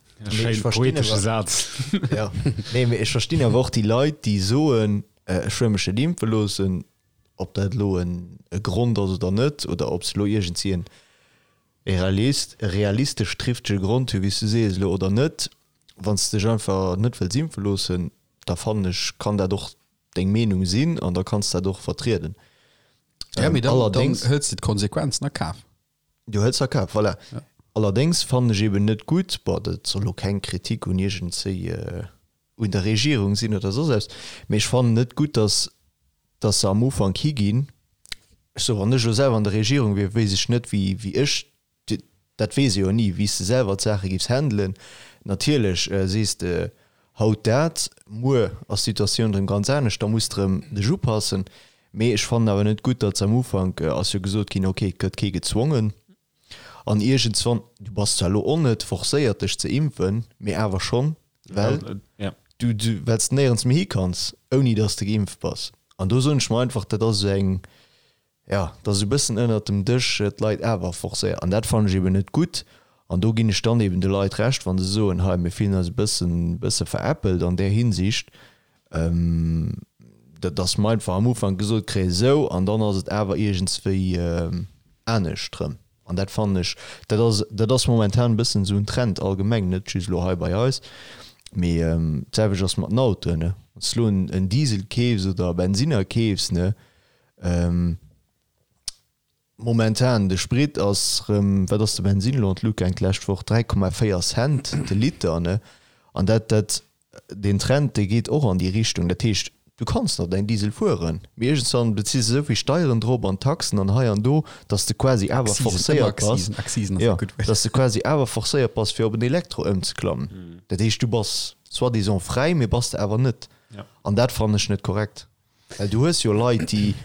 ech verstinn awer, Saz. Ja, nee, mee ech verstinn awer och déi Leit déi soen, ech wëll mech net impfe loossen, ob dat elo e Grond ass oder net, oder ob se elo iergendwéi en realistesch trifftege Grond hu wéi s du sees elo oder net, wann s de dech einfach net wëlls impfe loossen, da fannen ech kann dat och deng Meenung sinn an da kanns dat och vertrieden. Ja, mee dann, dann hëls de d'Konsequenzen a Kaf. Du hëls a Kaf, voilà. Ja. Allerdéngs fannen ech eben net gutt, bon dat soll elo keng Kritik un iergendzéi un der Regierung sinn oder soss eppes, mee ech fannen net gutt, datt datt se am Ufank higinn, ech soe wann ech elo selwer an der Regierung wier, wéisst ech net wéi wéi ech, dat weess ee jo ni, wéi s de selwer d'Saache giffs handelen. Natierlech sees de haut dat, muer ass d'Situatioun erëm ganz anescht, da muss de erëm dech upassen. Mee ech fannen awer net gutt, datt se am Ufank ass jo gesot ginn, ok, et gëtt kee gezwongen an iergendswann, du bass zwar elo och net forcéiert dech ze impfen, mee awer schonn, well du well s de néierens méi hi kanns, ouni datt s de geimpft bass. An do soen ech mer einfach, dat ass esou eng, jo, dat ass esou e bëssen ënnert dem Dësch d'Leit awer forcéiert. An dat fannen ech eben net gutt. An do ginn ech dann eben de Leit Recht, wa se soen, hei mir fillen eis e bëssen, bësse veräppelt an där Hinsicht, dass mer einfach am Ufank gesot kréien, esou, an dann ass et awer iergendswéi anescht erëm. An dat fannen ech, dat ass, dat ass momentan e bëssen esou en Trend allgemeng, net just elo hei bei eis, mee d'selwecht ass mat den Autoen, ne. Wann s de elo en Diesel keefs oder e Bensinner keefs, ne, Momentan, de Sprit ass rëm, wat ass de Bensin elo an d'Lut gaang d'lescht Woch, 3,4 Cent de Liter, ne? An dat, dat, deen Trend, dee geet och an déi Richtung. Dat heescht, du kanns nach däin Diesel fueren, mee iergendswann beziss de esou vill Steieren drop an Taxen an hei an do, dass de quasi awer forcéiert bass, jo, dass de quasi awer forcéiert bass, fir op en Elektro ëmzeklammen. Dat heescht, du bass soi-disant fräi, mee bass de awer net. An dat fannen ech net korrekt. Well du hues jo Leit, déi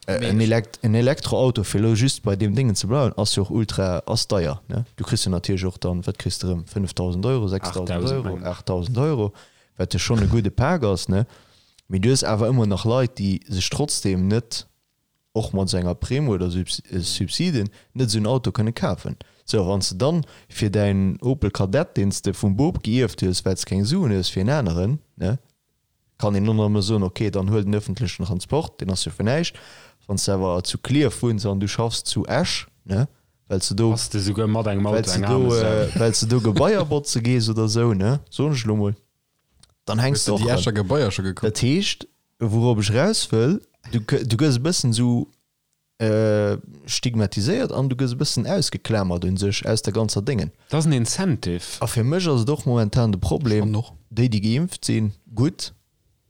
en Elekt en Elektroauto, fir elo just bei deem Déngen ze bleiwen, ass jo och ultra, ass deier, ne? Du kriss jo natierlech och dann, wat kriss de erëm, 5.000 Euro, 6.000 Euro, 8.000 Euro, wat jo schonn e gudde Pak ass, ne? Mee du hues awer ëmmer nach Leit, déi sech trotzdeem net, och mat esou enger Primm oder Subsiden, net esou en Auto kënne kafen. Sou, a wann s de dann fir däin Opel Kadett, deen s de vum Bop gierft hues, well s keng Suen hues fir en aneren, ne? Kann een och nach ëmmer soen, ok, dann huel den ëffentlechen Transport, deen ass jo fir näischt. Wann s de awer zu Klierf wunns an du schaffs zu Esch, ne, well s de do, Bass de souguer mat engem well Auto s de eng do, aarme Sau. well s de do Gebaier botze gees oder esou, ne, soen ech elo mol, dann hänks Hues de de och déi erëm. Escher Gebaier scho gekuckt? Dat heescht, wourob ech eraus wëll, du, du gëss e bëssen esou stigmatiséiert an du gëss e bëssen ausgeklamert un sech aus der ganzer Déngen. Dat ass en Incentive. A fir mech ass et och momentan de Problem, déi déi geimpft sinn, gutt,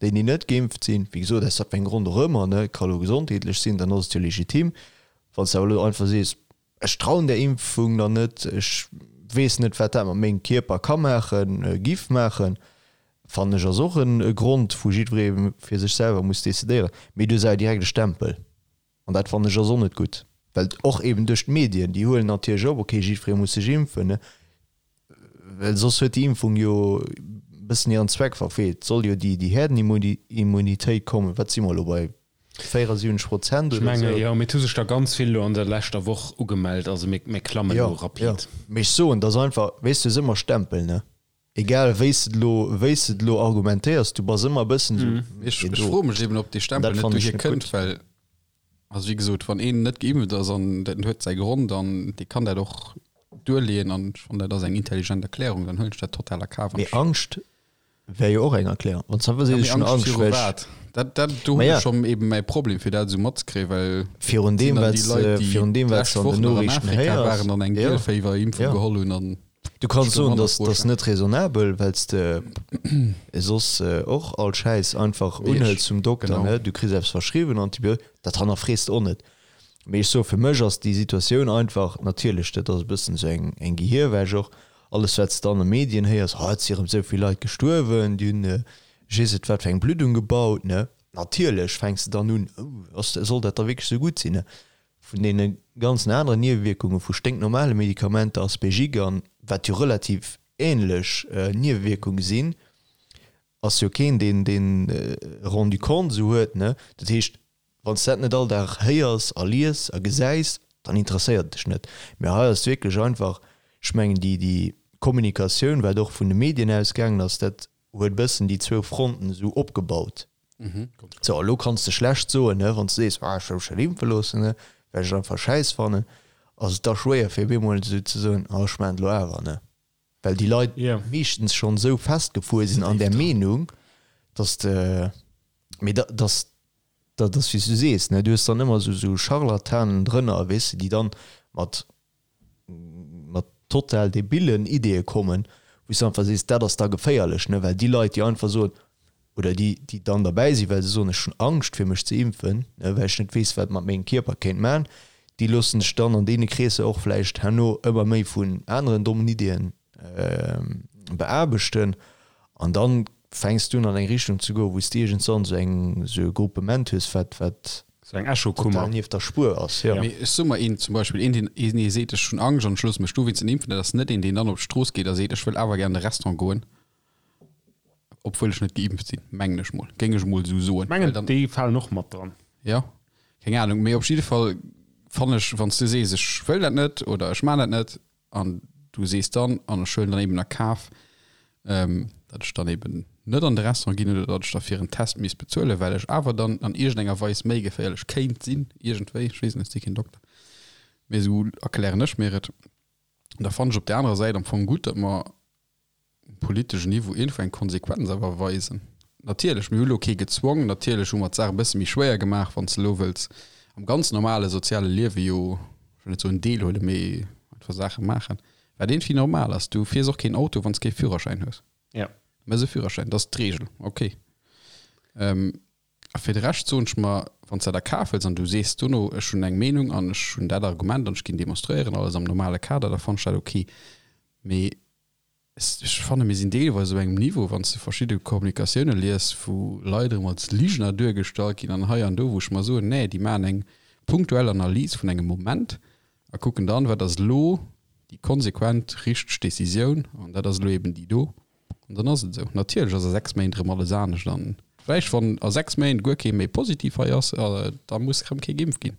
déi déi net geimpft sinn, wéi gesot, aus wat fir engem Grond och ëmmer, ne, ka lo gesondheetlech sinn, dann ass et jo legitim. Wann s de awer elo einfach sees, ech trauen där Impfung dann net, ech weess net wat dat mat mengem Kierper ka maachen, giff maachen, fannen ech ass och e Grond wou jiddweree fir sech selwer muss decidéieren. Mee du hues awer direkt e Stempel. An dat fannen ech ass och net gutt, well och eben duerch d'Medien, déi huelen natierlech op, okay, jiddweree muss sech impfen, ne, well soss huet déi Impfung jo e bëssen hiren Zweck verfeelt. Et soll jo déi, déi Herdenimmunitéit kommen. Wat si mer elo bei 74 Prozent Ech oder menge esou? jo, mee et hu sech der ganz vill elo an der leschter Woch ugemellt, also mir, mir klammen Jo, elo jo, rapid. mee ech soen, et ass einfach, weess du, et ass ëmmer Stempel, ne. Egal wéi s de elo, wéi s de elo argumentéiers, du bass ëmmer e bëssen esou, Ech, ech froe mech eben, ob dee Stempel net dohier kënnt, well, also wéi gesot, wann een net geimpft ass an dat huet säi Grond an dee kann dat och duerleeën an ech fannen dat ass eng intelligent Erklärung, dann huelen ech dat total a Kaf. Mee Angscht wär jo och eng Erklärung. Wann s de einfach sees, Ja, mee ech hunn Angscht Angscht, viru well ech. wat? Dat, dat, do hunn Maja. ech schonn eben mäi Problem, fir dat esou matzekréien, well Virun et sinn deem, dann wat déi s Leit, de, déi virun deem, wat s d'lescht de an Woch den nach an Noriichten Afrika héiers. waren an eng Ja, Gielféiwer-Impfung ja. geholl hunn an Du kanns ech do soen, manner dass Froe dass stellen. net raisonnabel, well s de soss och all Schäiss einfach Mee ech, unhëls vum Dokter, genau. ne? Du kriss eppes verschriwwen, Antibiotiques, dat hannerfrees de och net. Mee ech soe, fir mech ass déi Situatioun einfach, natierlech, dat ass e bëssen esou eng eng Gehirwäsch och, alles wat s de an de Medien héiers, oh et si erëm esou vill Leit gestuerwen, déi hunn ech weess net wat fir eng Bluddung gebaut, ne? Natierlech fänks de dann un, oh ass, soll dat da wierklech esou gutt sinn, ne? Vun deene ganzen aneren Niewewierkunge vu sténknormale Medikamenter, Aspegic an wat jo relativ änlech Niewewierkunge sinn, ass jo keen deen deen rendu compte esou huet, ne? Dat heescht, wann s de dat net all Dag héiers a lies a gesäis, dann interesséiert et dech net. Mä hei ass et wierklech einfach, ech mengen déi déi Kommunikatioun, wat och vun de Medien ausgaangen ass, dat huet e bëssen déi zwou Fronten esou opgebaut. Sou, elo kanns de schlecht soen, ne, wann s de sees, ah ech wëll mech net impfe loossen, ne, well ech et einfach schäiss fannen, ass et da schwéier fir op eemol esou ze soen, ah ech maachen et elo awer, ne, well déi Leit meeschtens schonn esou festgefuer sinn an där Meenung, dass de, mee da, dass, dat ass wéi s du sees, ne, du hues dann ëmmer esou esou Scharlatanen drënner, weess de, déi dann mat mat total debillen Ideeë kommen, wou s de einfach sees, dat ass da geféierlech, ne, well déi Leit, déi einfach soen, oder déi, déi dann derbäi sinn, well se soen, ech hunn Angscht fir mech ze impfen, ne, well ech net weess, wat et mat mengem Kierper kéint man, déi loosse sech dann an deene Kreesser och vläicht herno ëmmer méi vun aneren dommen Ideeën beaarbechten an dann fänks du un an eng Richtung ze goen, wou s de iergendwann esou eng, esou e Gruppement hues, wat, wat Sou eng Echokummer. total nieft der Spuer ass, jo. Mee ech soe mer een, zum Beispill een, deen, een dee seet, ech hunn Angscht an ech loosse mech dowéinst net impfen, dat ass net een, deen dann op d'Strooss geet a seet, ech wëll awer gär an de Restaurant goen, obwuel ech net geimpft sinn, mengen ech mol, géing ech mol esou soen. Ech mengen, Well dann, déi falen och mat dran. jo, keng Ahnung, mee op jidde Fall fannen ech, wann s du sees, ech wëll dat net oder ech maan dat net, An du sees dann, an ech huelen dann eben a Kaf, datt ech dann eben net an de Restaurant ginn oder datt ech da fir en Test misst bezuelen, well ech awer dann an iergendenger Weis méi geféierlech kéint sinn, iergendwéi, ech weess net, ech si keen Dokter, mee esou erklären ech mir et. Da fannen ech op där anerer Säit am Fong gutt, datt mer um politeschen Niveau iergendwou eng Konsequenz awer weisen. Natierlech, mir hu lo kee gezwongen, natierlech hu mer d'Saach e bësse méi schwéier gemaach, wann s de elo wëlls am ganz normale soziale Liewe jo, ech wëll net soen deelhuelen, mee einfach Saache maachen, wat iergendwéi normal ass. Du fiers och keen Auto, wann s kee Führerschäin hues. Ja. Du méchs e Führerschäin, dat ass d'Reegel, okay. A fir de Rescht soen ech mer, wann s de dat a Kaf hëls an du sees dono, ech hunn eng Meenung an ech hunn dat Argument an ech ginn demonstréieren, alles am normale Kader, da fannen ech dat okay. Mee Ech fanne mir sinn deelweis op engem Niveau, wann s de verschidde Kommunikatioune lies, wou Leit erëm als Ligener duergestallt ginn an hei an do, wou ech mer soen, nee, déi maachen eng punktuell Analys vun engem Moment a kucken dann, wat ass elo déi konsequent richteg Decisioun an dat ass elo eben déi do an dann ass et esou. Natierlech ass a 6 Méint erëm alles anescht an vläicht, wann a 6 Méint guer kee méi positiv hei ass, da muss erëm kee geimpft ginn.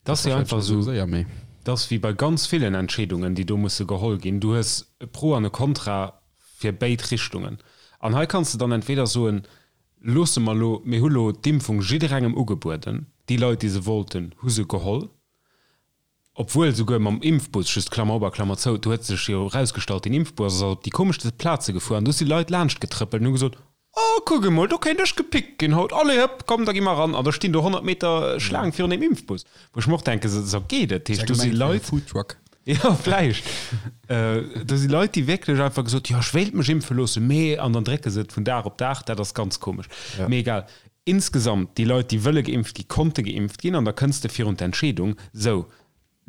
Dat ass jo einfach esou, dat ass wéi bei ganz villen Entscheedungen, déi do musse geholl ginn. Du hues e Pro an e Kontra fir béid Richtungen. An hei kanns de dann entweder soen, loosse mer elo, mir hu lo d'Impfung jidderengem ugebueden, déi Leit, déi se wollten, hu se geholl, obwuel souguer mam Impfbus, just Klammer op a Klammer zou, do huet sech jo erausgestallt, deen Impfbus ass op déi komeschste Plaze gefuer an do si Leit laanscht getrëppelt an hu gesot, Oh, kuck emol, do kéint ech gepickt ginn haut. Allez, hëpp, komm, da gi mer eran. An da stinn do 100 Meter Schlaang virun deem Impfbus. Wou ech mer och denken, sou geet et. Dat heescht, do si Leit. Foodtruck. Jo, vläicht. Do si Leit, déi wierklech einfach gesot, jo, ech wéilt mech impfe loossen, mee. An dann drécke se et vun Dag op Dag. Dat ass ganz komesch. Mee egal. Insgesamt, déi Leit, déi wëlle geimpft gi, konnte geimpft ginn. An da kënns de virun d'Entscheedung, sou,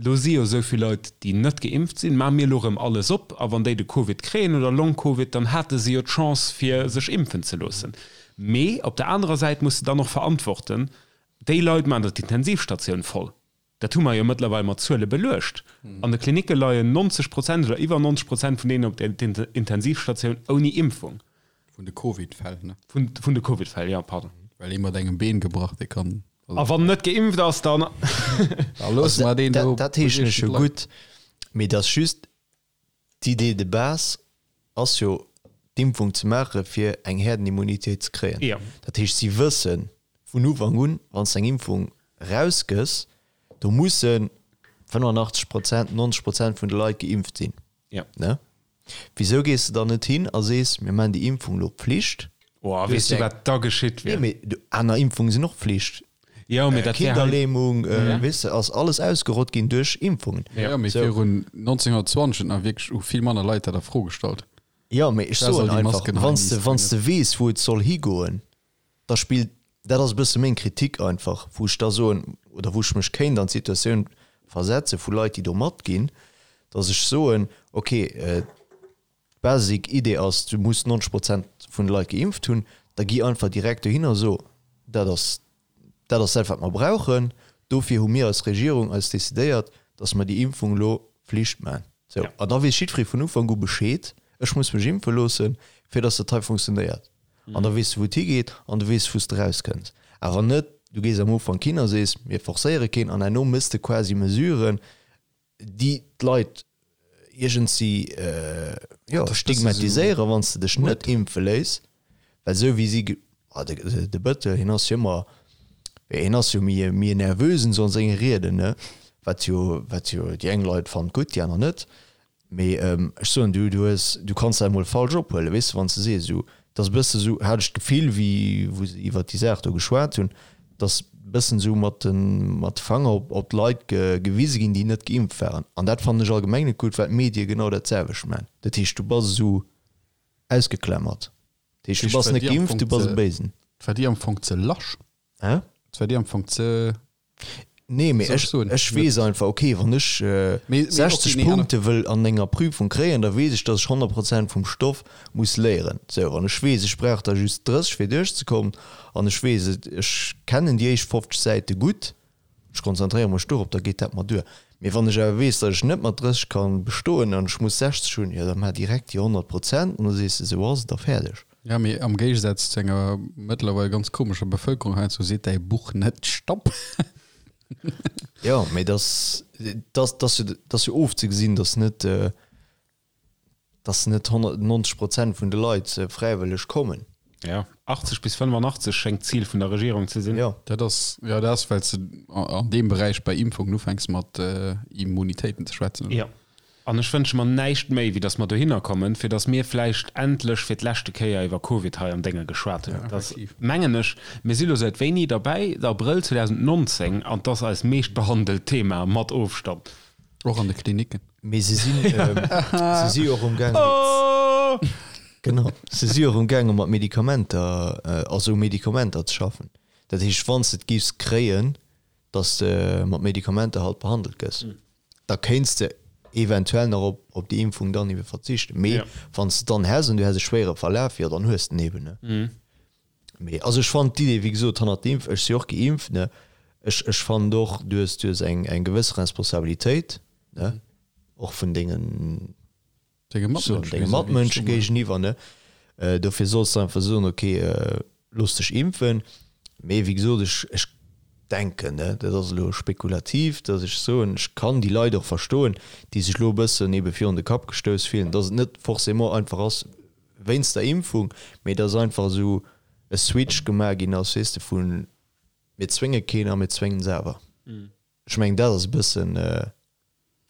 Lo si jo esou vill Leit, déi net geimpft sinn. Maache mir elo erëm alles op a wann déi de Covid kréien oder Long-Covid, dann hate se jo d'Chance fir sech impfen ze loossen. Mee op der anerer Säit muss de dann och verantworten, déi Leit maachen der d'Intensivstatioun voll. Dat hu mer jo mëttlerweil mat Zuele beluecht. An de Klinicke leien 90 Prozent oder iwwer 90 Prozent vun deenen op der Intensivstatioun ouni Impfung. Vun de Covid-Fäll, ne? Vun de Covid-Fäll, jo, pardon. Well ee mat engem Been gebrach, dee kann. A wann net geimpft ass, dann. Da loosse mer deen do. Dat heeschen ech jo gutt, mee et ass just d'Idée de base. ass jo d'Impfung ze maache fir eng Herdenimmunitéit ze kréien. Jo. Dat heescht, si wësse vun Ufank un, wann s de eng Impfung erausgëss, do musse 85 Prozent, 90 Prozent vun de Leit geimpft sinn. Jo. Ne? Wisou gees de dann net hin a sees, mir maachen déi Impfung elo Pflicht? Oh, weess du, wat da geschitt Nee, wier? mee du, aner Impfunge sinn och Pflicht. Jo, mee dat wär hei. Kinderlähmung, weess de, ass alles ausgerott ginn duerch Impfungen. Jo, mee Sou. virun 1920 huet nach wierklech u vill manner Leit dat a Fro gestallt. Jo, mee ech Da soll soen déi einfach, Masken hei wann s de, miisst wann s de weess, wou et soll higoen, da spillt, dat ass e bësse meng Kritik einfach, wou ech da soen, oder wou ech mech kéint an d'Situatioun versetze vu Leit, déi do matginn, datt ech soen, okay, d'basic Idee ass, du muss 90 Prozent vun de Leit geimpft hunn, da gi einfach direkt dohin a so, dat ass dat ass dat, wat mer brauchen, dofir hu mir als Regierung eis decidéiert, datt mer déi Impfung elo Flicht maachen. Sou, an da weess jiddweree vun Ufank u Bescheed, ech muss mech impfe loossen, fir datt dat hei funktionéiert. An da weess de, wou et higeet an du weess, wou s de erauskënns. Awer net, du gees am Ufank hin a sees, mir forcéiere keen an herno méchs de quasi Mesuren, déi d'Leit iergendsi, jo, stigmatiséieren, wann s de dech net impfe léiss. Well esou wéi si, de Bëttel, hien ass jo ëmmer, hien ass jo méi e Nervösen esou an senge Rieden, ne, wat jo, wat jo déi eng Leit fannen gutt, déi aner net. Mee ech soen, du, du hues, du kanns dat emol falsch ophuelen, weess de, wann s de sees esou, et ass e bësse esou, hat ech d'Gefill, wéi wou se iwwert déi Saach do geschwat hunn, datt e bëssen esou mat de, mat de Fanger op, op d'Leit ge, gewise ginn, déi net geimpft waren. An dat fannen ech allgemeng net gutt, well d'Medie genau dat selwecht maachen. Dat heescht, du bass esou ausgeklammert. Dat heescht, du bass net geimpft, du bass e Béisen. Et war dir am Fong ze lasch. Hä? Et war dir am Fong ze. Nee, mee Soll ech, ech soen? ech weess einfach, okay, wann ech Mee- mee 60 okay, nee, Punkte wëll an enger Prüfung kréien, da weess ech, dass ech 100 Prozent vum Stoff muss léieren. Sou, wann ech weess, ech brauch der just 30 fir duerchzekommen an ech weess, et, ech kennen déi éischt 50 Säite gutt, ech konzentréiere mech dorop, da geet dat mer duer. Mee wann ech awer weess, dass ech net mat 30 ka bestoen an ech muss 60 hunn, jo da maach direkt déi 100 Prozent an da sees de, sou ass et a fäerdeg. Ja, mee am Géigesaz zu enger mëttlerweil ganz komescher Bevëlkerung heiansdo seet däi Buch net Stopp. Jo, mee dass, dass, dass jo, dass jo ofzegesinn, dass net, dass net 190 Prozent vun de Leit fräiwëlleg kommen. Ja, 80 bis 85 schéngt d'Zil vun der Regierung ze sinn. Jo. Dat ass, jo, dat ass, well s de an deem Beräich bei Impfungen ufänks mat Immunitéiten ze schwätzen, oder? Jo. An ech wënsche mer näischt méi, wéi datt mer dohinner kommen, fir datt mir vläicht endlech fir d'leschte Kéier iwwer Covid hei am Dénge geschwat hunn. Dat ass, mengen ech, mir si lo säit wéini derbäi? Abrëll 2019, an 't ass eist meeschtbehandelt Thema mat Ofstand. Och an de Klinicken. Mee se sinn, se si och umgaangen, genau, se si och umgaangen, mat Medikamenter, also u Medikamenter ze schaffen. Dat heescht, wann s de et giffs kréien, datt s de mat Medikamenter halt behandelt gëss. da kéints de eventuell nach op, op déi Impfung dann ebe verzichten. Mee Ja. wann s de dann häss an du häss e schwéiere Verlaf, jo dann hues de en eben, ne. Mhm. Mee also ech fannen d'Idee, wéi gesot, hannert der Impf, ech si och geimpft, ne, ech, ech fannen och, du hues, du hues eng, eng gewëss Responsabilitéit, ne, och vun dengen, Denge Matmënsche denge Matmënsche géigeniwwer, ne. Dofir solls de einfach soen, ok, looss dech impfen. Mee wéi gesot, ech, ech denken, ne, dat ass elo spekulativ, datt ech soen, ech kann déi Leit och verstoen, déi sech elo e bëssen ebe virun de Kapp gestouss fillen, datt et net forcément einfach ass wéinst der Impfung, mee datt einfach esou e Switch gemaach ginn ass, weess de, vu mir zwénge keen a mir zwéngen se awer. Ech mengen, dat ass e bëssen,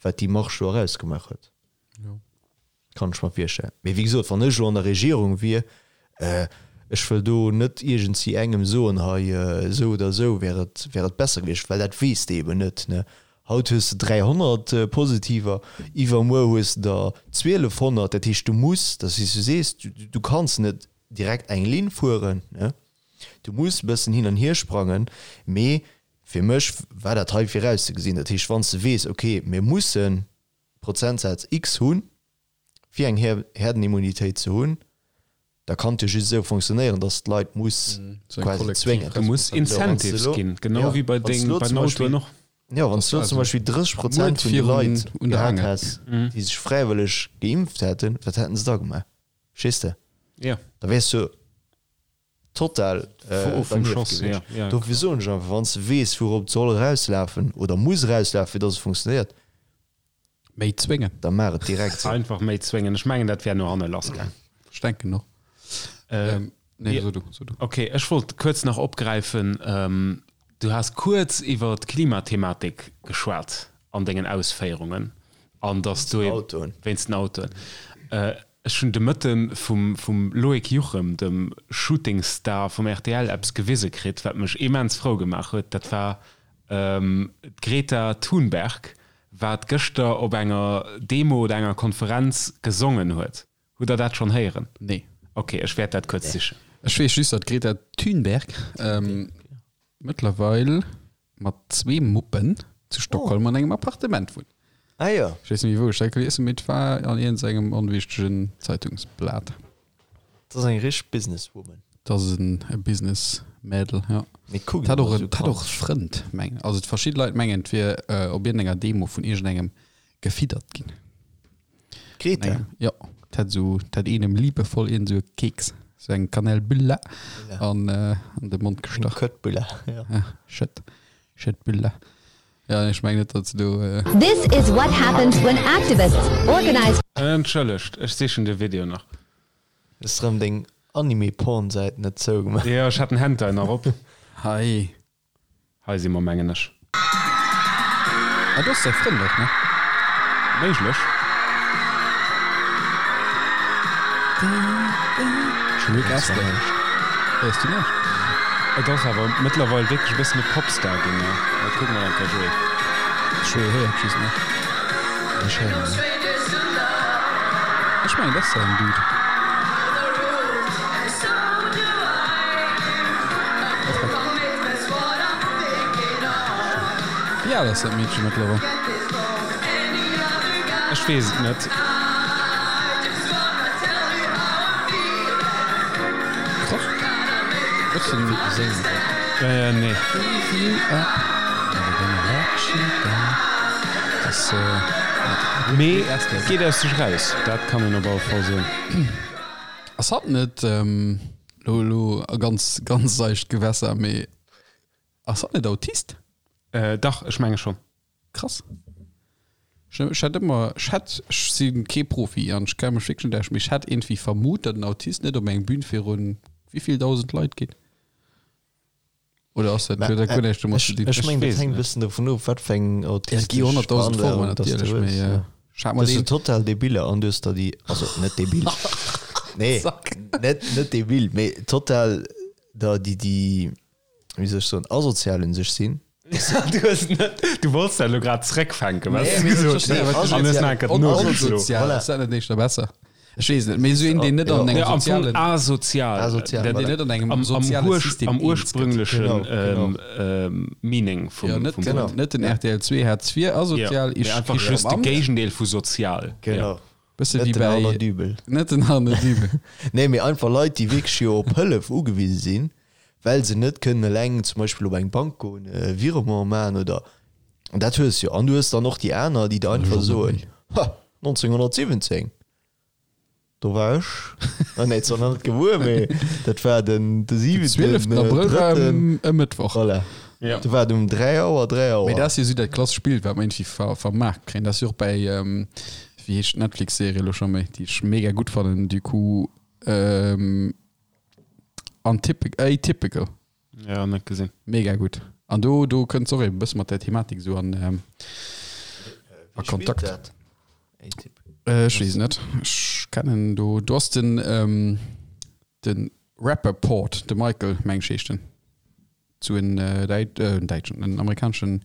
wat déi Marche do erausgemaach huet. Kann ech mer virstellen. Mee wéi gesot, wann ech elo an der Regierung wier, ech wëll do net iergendsi engem soen, hei esou oder esou wär et, wär et besser gewiescht, well dat weess de eben net, ne. Haut hues de 300 Positiver, iwwermuer hues de der 1200. Dat heescht, du muss, dat ass wéi s du sees, du kanns net direkt eng Linn fueren, ne. Du muss e bëssen hin an hier sprangen, mee Fir mech war dat hei virauszegesinn. Dat heescht, wann s de weess, okay, mir mussen Prozentsaz X hunn, fir eng Herdenimmunitéit ze hunn, da kann et jo just esou fonctionnéieren, dass d'Leit muss quasi zwéngen. Du muss Incentives ginn, genau wéi bei den Autoen och. Jo, wann s du elo zum Beispill 30 Prozent vun de Leit gehat häss, déi sech fräiwëlleg geimpft hätten, wat hätten se da gemaach? Verstees de? Da wäers du total dernieft gewiescht. Dofir soen ech einfach, wann s de weess, wourop et soll erauslafen oder muss erauslafen, fir dass et funktionéiert. Méi zwéngen. Da maach et direkt sou. Einfach méi zwéngen. Ech mengen, dat wär no hanne lassgaang. Ech denken och. Nee, so du, so du. Okay, ech wollt kuerz nach opgräifen, du has kuerz iwwer d'Klimathematik geschwat an dengen Ausféierungen an dass du wéinst den Autoen. Ech hunn de Mëtte vum vum Loïc Juchem, dem Shootingstar vum rtl, eppes gewise kritt, wat mech immens frou gemaach huet. Dat war d'Greta Thunberg, wat gëschter op enger Demo oder enger Konferenz gesongen huet. Hutt der dat schonn héieren? Nee. Ok, ech wäert dat kuerz sichen. Ech weess just, datt d'Greta Thunberg mëttlerweil mat zwee Muppen zu Stockholm an engem Appartement wunnt. Ah jo. Ech weess net méi wou ech dat gelies hunn, mee et war an iergendengem onwichtegen Zeitungsblat. Dat ass eng richteg Businesswoman. Dat ass e Businessmädel, jo. Mee kuckt Hat emol och esou en, hat och e kanzeg. Frënd, mengen, also verschidde Leit mengen, et wier op iergendenger Demo vun iergendengem gefiddert ginn. D'Greta? Jo, et hätt esou, et hätt een em liebevoll iergend esou e Keks, esou eng Kanelbulle an an de Mond Eng gestach. Köttbulla, jo. Ja, Schëtt, Schëttbulla. Ja, ech mengen net, datt se do. This is what happens when activists organize. Entschëllegt, ech sichen de Video nach. Hues rëm deng Anime-Porn-Säit net zougemaach? Jo, ech hat den Hentai nach op. Hei. Hei si mer, mengen ech. Ah, do ass säi Frënd och, ne? Méiglech. Rick Astley. Héiers du näischt? Et ass awer mëttlerweil wierklech e bëssen e Popstar ginn, ne? Mä kucke mer eng Kéier, Joé. Joé héiert just net. Ech héieren net. Ech mengen, dat ass säin Dude. Wéi al ass dat Meedche mëttlerweil? Ech weess et net. Krass. Bëssen Äh, nee. Das, äh, Mee et geet aus sech raus, dat kann een op alle Fall soen. Ass hatt net, lo elo a ganz ganz seicht Gewässer, mee ass hatt net Autist? Dach, ech menge schonn. Krass. Ech ech hätt ëmmer, ech hätt, ech si kee Profi an ech kenne mech wierklech net aus, mee ech hätt iergendwéi vermut, datt en Autist net op eng Bühn virun wéivill 1.000 Leit geet. Oder ass dat, huet dat guer näischt domat ze dinn? Ech mengen, dat weess hänkt e net. bëssen dovun of, wat fir eng Ja, et autistesch gi 100.000 Formen Veranlagung dass du natierlech, hues. mee Ja. ech hat mer Du hues deen. so total Debiller an du hues der déi, also net debil, nee, net, net debil, mee total der déi, déi, wéi soll ech soen, asozial un sech sinn. Du hues net, du wollts dat elo grad zréckfänken, wat Nee, s du mee ech gesot verstinn, hues, wat du an hues nach eng Kéier nogezlo. Asozial, Voilà. ass dat net éischter besser? Ech weess et net, mee esou een, deen net an engem Ja, am Fong sozialen, asozial. Asozial, Dat- deen voilà. net an engem Am, am, soziale Urs, System am eens gëtt. ursprünglechen Genau, genau. ähm, ähm, Meaning vum, Ja, net, vum Genau. Wuert. net den RTL 2 Hartz IV asozial, Ja, ich, mee einfach ich just am de Amt. Géigendeel vu sozial. Genau. Bësse Net wéi den Arno bäi Dübel. net den Arno Dübel. Nee, mee einfach Leit, déi wierklech jo op Hëllef ugewise sinn, well se net kënnen eleng zum Beispill op eng Bank goen, e Virement maachen oder, an dat hues jo. An du hues dann och déi aner, déi der einfach soen, Ha, 1917, do war ech, ah nee, zwar nach net gebuer, mee dat war den de Den siwenten, 12. Abrëll war drëtten, e Mëttwoch. voilà, Ja. do war et um 3 Auer, 3 Mee Auer. dat ass jo esou dat klassesch Bild, wat mer iergendwéi ver vermaart kréien. Dat ass jo och bäi, wéi heescht d'Netflix-Serie elo scho méi, déi ech mega gutt fannen, du coup, Antypic, Atypical. Ja, net gesinn. Mega gutt. An do, do kënnt och eben e bësse mat der Thematik esou an, ähm, a Kontakt. Dat? Atypical. Äh, ech weess net. Ech kennen do, do ass den, ähm, den Rappaport, de Michael, meng ech heescht en. Zu en Däit, en däitschen, en amerikaneschen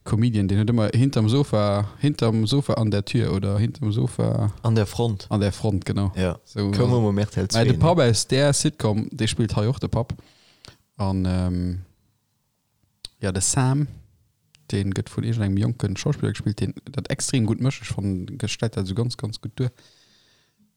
Comedian, deen huet ëmmer hinterm Sofa, hinterm Sofa an der Tür oder hinterm Sofa. An der Front. An der Front, genau. Ja. So, Koum ëmmer um RTL 2. Mä de Papp aus där Sitcom, dee spillt hei och de Papp. An ähm, ja, de Sam, dee gëtt vun iergendengem jonke Schauspiller gespillt, deen dat extrem gutt mécht. Ech fannen, e stellt dat esou ganz, ganz gutt duer.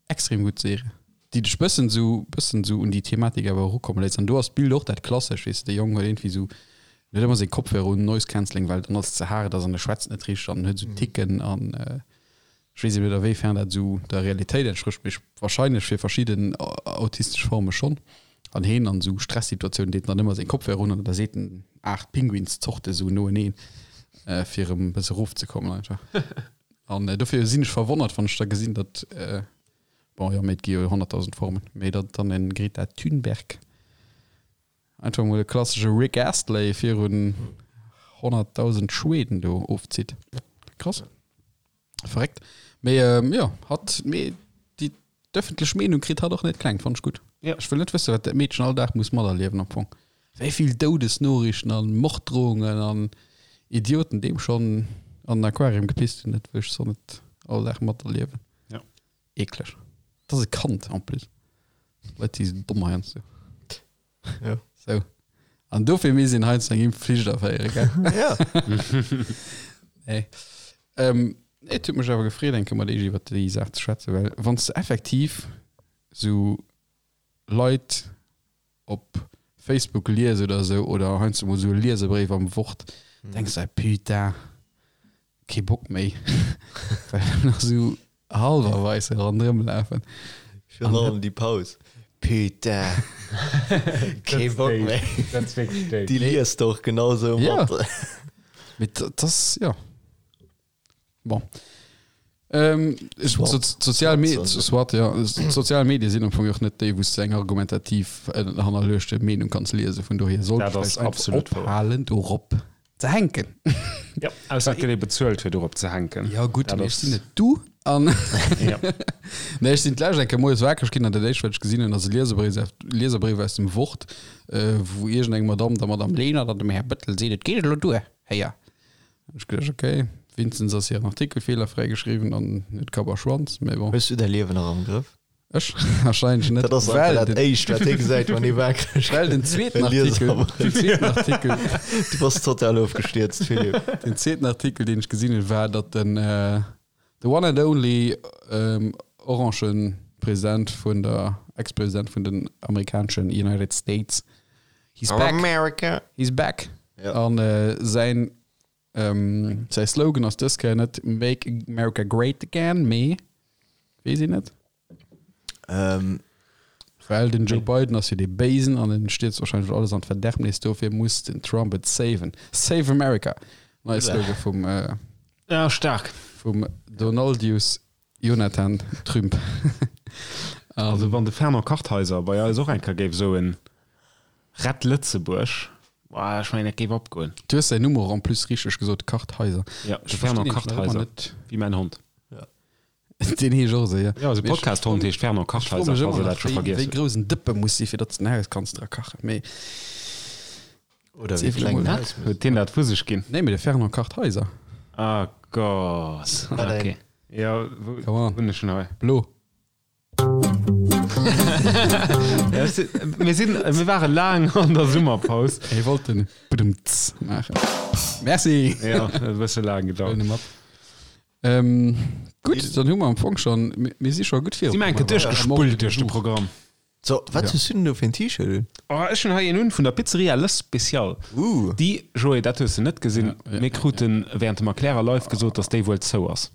Extrem gutt Serie, déi dech bëssen sou bëssen sou un déi Thematik awer erukomme léisst. An do ass d'Bild och dat klassesch, weess de, de Jong huet iergendwéi sou, en huet ëmmer seng Kopfhörer un, Noise Cancelling, well dann alles ze haart ass an e schwätzt net richteg an en huet sou Ticken an ech weess eben net a wéi fern dat sou der Realitéit entsprécht, mee wahrscheinlech fir verschidden autistesch Forme schonn. An heen an sou Stressituatiounen deet en dann ëmmer seng Kopfhörer un an da seet en 8 Pinguinszorte sou noeneen, fir erëm e bësse erofzekommen einfach. An dofir sinn ech verwonnert, wann ech da gesinn, datt, bon, jo, mee et gi jo 100.000 Formen, mee datt dann en Greta Thunberg einfach mol e klassesche Rick Astley virun 100.000 Schweden do ofzitt. Krass. Verréckt. Mee jo, hatt, mee déi d'ëffentlech Meenung kritt hatt och net kleng, fannt ech gutt. Ja. Ech wëll net wëssen, wat dat Meedchen all Dag muss materliewen am Fong. Wéi vill Doudesnoriichten an Morddrohungen an Idioten deem schonn an den Aquarium gepisst hunn, dat wëll ech so net all Dag materliewen. Ja. Eekleg. Dat ass e Kand en plus. Leit si sou domm heiansdo. Ja. Sou. An dofir misst een heiansdo eng Impfflicht aféieren, gell? Ja. Nee. Ähm, nee, et huet mech awer gefreet, eng Kéier mat iech iwwer déi Saach ze schwätzen, well wann s de effektiv sou Leit op Facebook lies oder esou oder heiansdo mol esou e Lieserbréif am Wort, denks de, Putain, kee Bock méi, well nach esou hallwerweis ronderëm lafen. Virun allem déi Paus. Putain, kee Bock méi. Dat ass wierklech déif. Déi liest de och genau esou mat. Ja, mee dat ass, jo. Bon. Ähm, sozial Medien, soit, ja, sozial Medien sinn am Fong och net déi, wou s de eng argumentativ äh, hannerluechte Meenung kanns liesen. Vun dohier sollt Dat ass vläicht einfach absolut wouer. ophalen, dorop ze hänken. Ja, ausser et gëtt ee bezuelt, fir dorop ze hänken. Ja gutt, Dat mee ech ass- sinn net du. An Ja. nee, ech sinn d'lescht eng Kéier moies wakereg ginn an dat éischt, wat ech gesinn hunn, ass e Lieserbréif, Lieserbréif aus dem Wort, äh, wou iergendeng Madamm der Madamm Lenert an dem Här Bëttel seet, et geet elo duer, héier. Ech geduecht, ok, wéinstens ass hiren Artikel feelerfräi geschriwwen an net Kapp a Schwanz, mee bon. Hues du däi Liewen nach am Grëff? Ech? Warscheinlech net. Dat ass einfach Well dat den, éischt, wat hie gesäit, wann hie waakreg well den gëtt. zweeten E Artikel, Lieserbréif. den zweeten Artikel, Du bass total ofgestierzt, Philippe. den zweeten Artikel, deen ech gesinn hunn, war, datt den, the one and only orange President vun der, Ex-President vun den amerikaneschen United States, he's back, America. he's back. Ja. An säin Säi Slogan ass dës Kéier net Make America Great Again, mee, weess een net? Ähm. Well den Joe Biden ass jo dee Béisen an en stierzt wahrscheinlech alles an d'Verderbnis, dofir muss den Trump et saven. Save America! Neie Slogan vum, äh, Ja, stark. vum Donaldius Jonathan Trümp. Also wann de Fernand Kartheiser bei eis och eng Kéier géif soen, Rett Lëtzebuerg, boah, ech mengen dat géif opgoen. Du hues säin Numm och en plus richteg gesot, Kartheiser. Ja, de Ech Fernand verstinn nämlech nach ëmmer Kartheiser, net. wéi mäin Hond. Deen heescht och esou, jo. Jo, eise Mee ech Podcast-Hond heescht Fernand ech froe Kartheiser, mech falls ëmmer der dat nach, scho wéi, vergiess wéi hutt. grouss en Dëppe muss si fir datt s de en Haus kanns dra kachen. Mee Oder wéi Zweifel kleng emol. en Haus muss Huet deen dat vu sech ginn? Nee, mee de Fernand Kartheiser. Ah Gott, Wat okay. een. Jo, wou Come on. hunn ech en hei? Blo. Ja, ech si- Mir sinn, mir ware laang an der Summerpaus. Hie wollt den Budumts maachen. Merci. Ja, e bësse laang gedauert. Huelen e mat. Ähm, gutt, dann hu mer am Fong schon, mir, mir si scho gutt Si mer enke duerchgespullt duerch de Programm. So, wat Ja. hues du denn do fir en T-Shirt un? Oh, ech hunn hei een un vun der Pizzeria Le Special. Uh. Déi, Joé, dat hues de net gesinn, Ja, ja, mir kruten während dem Erklärer live gesot, dass déi wuel zou ass.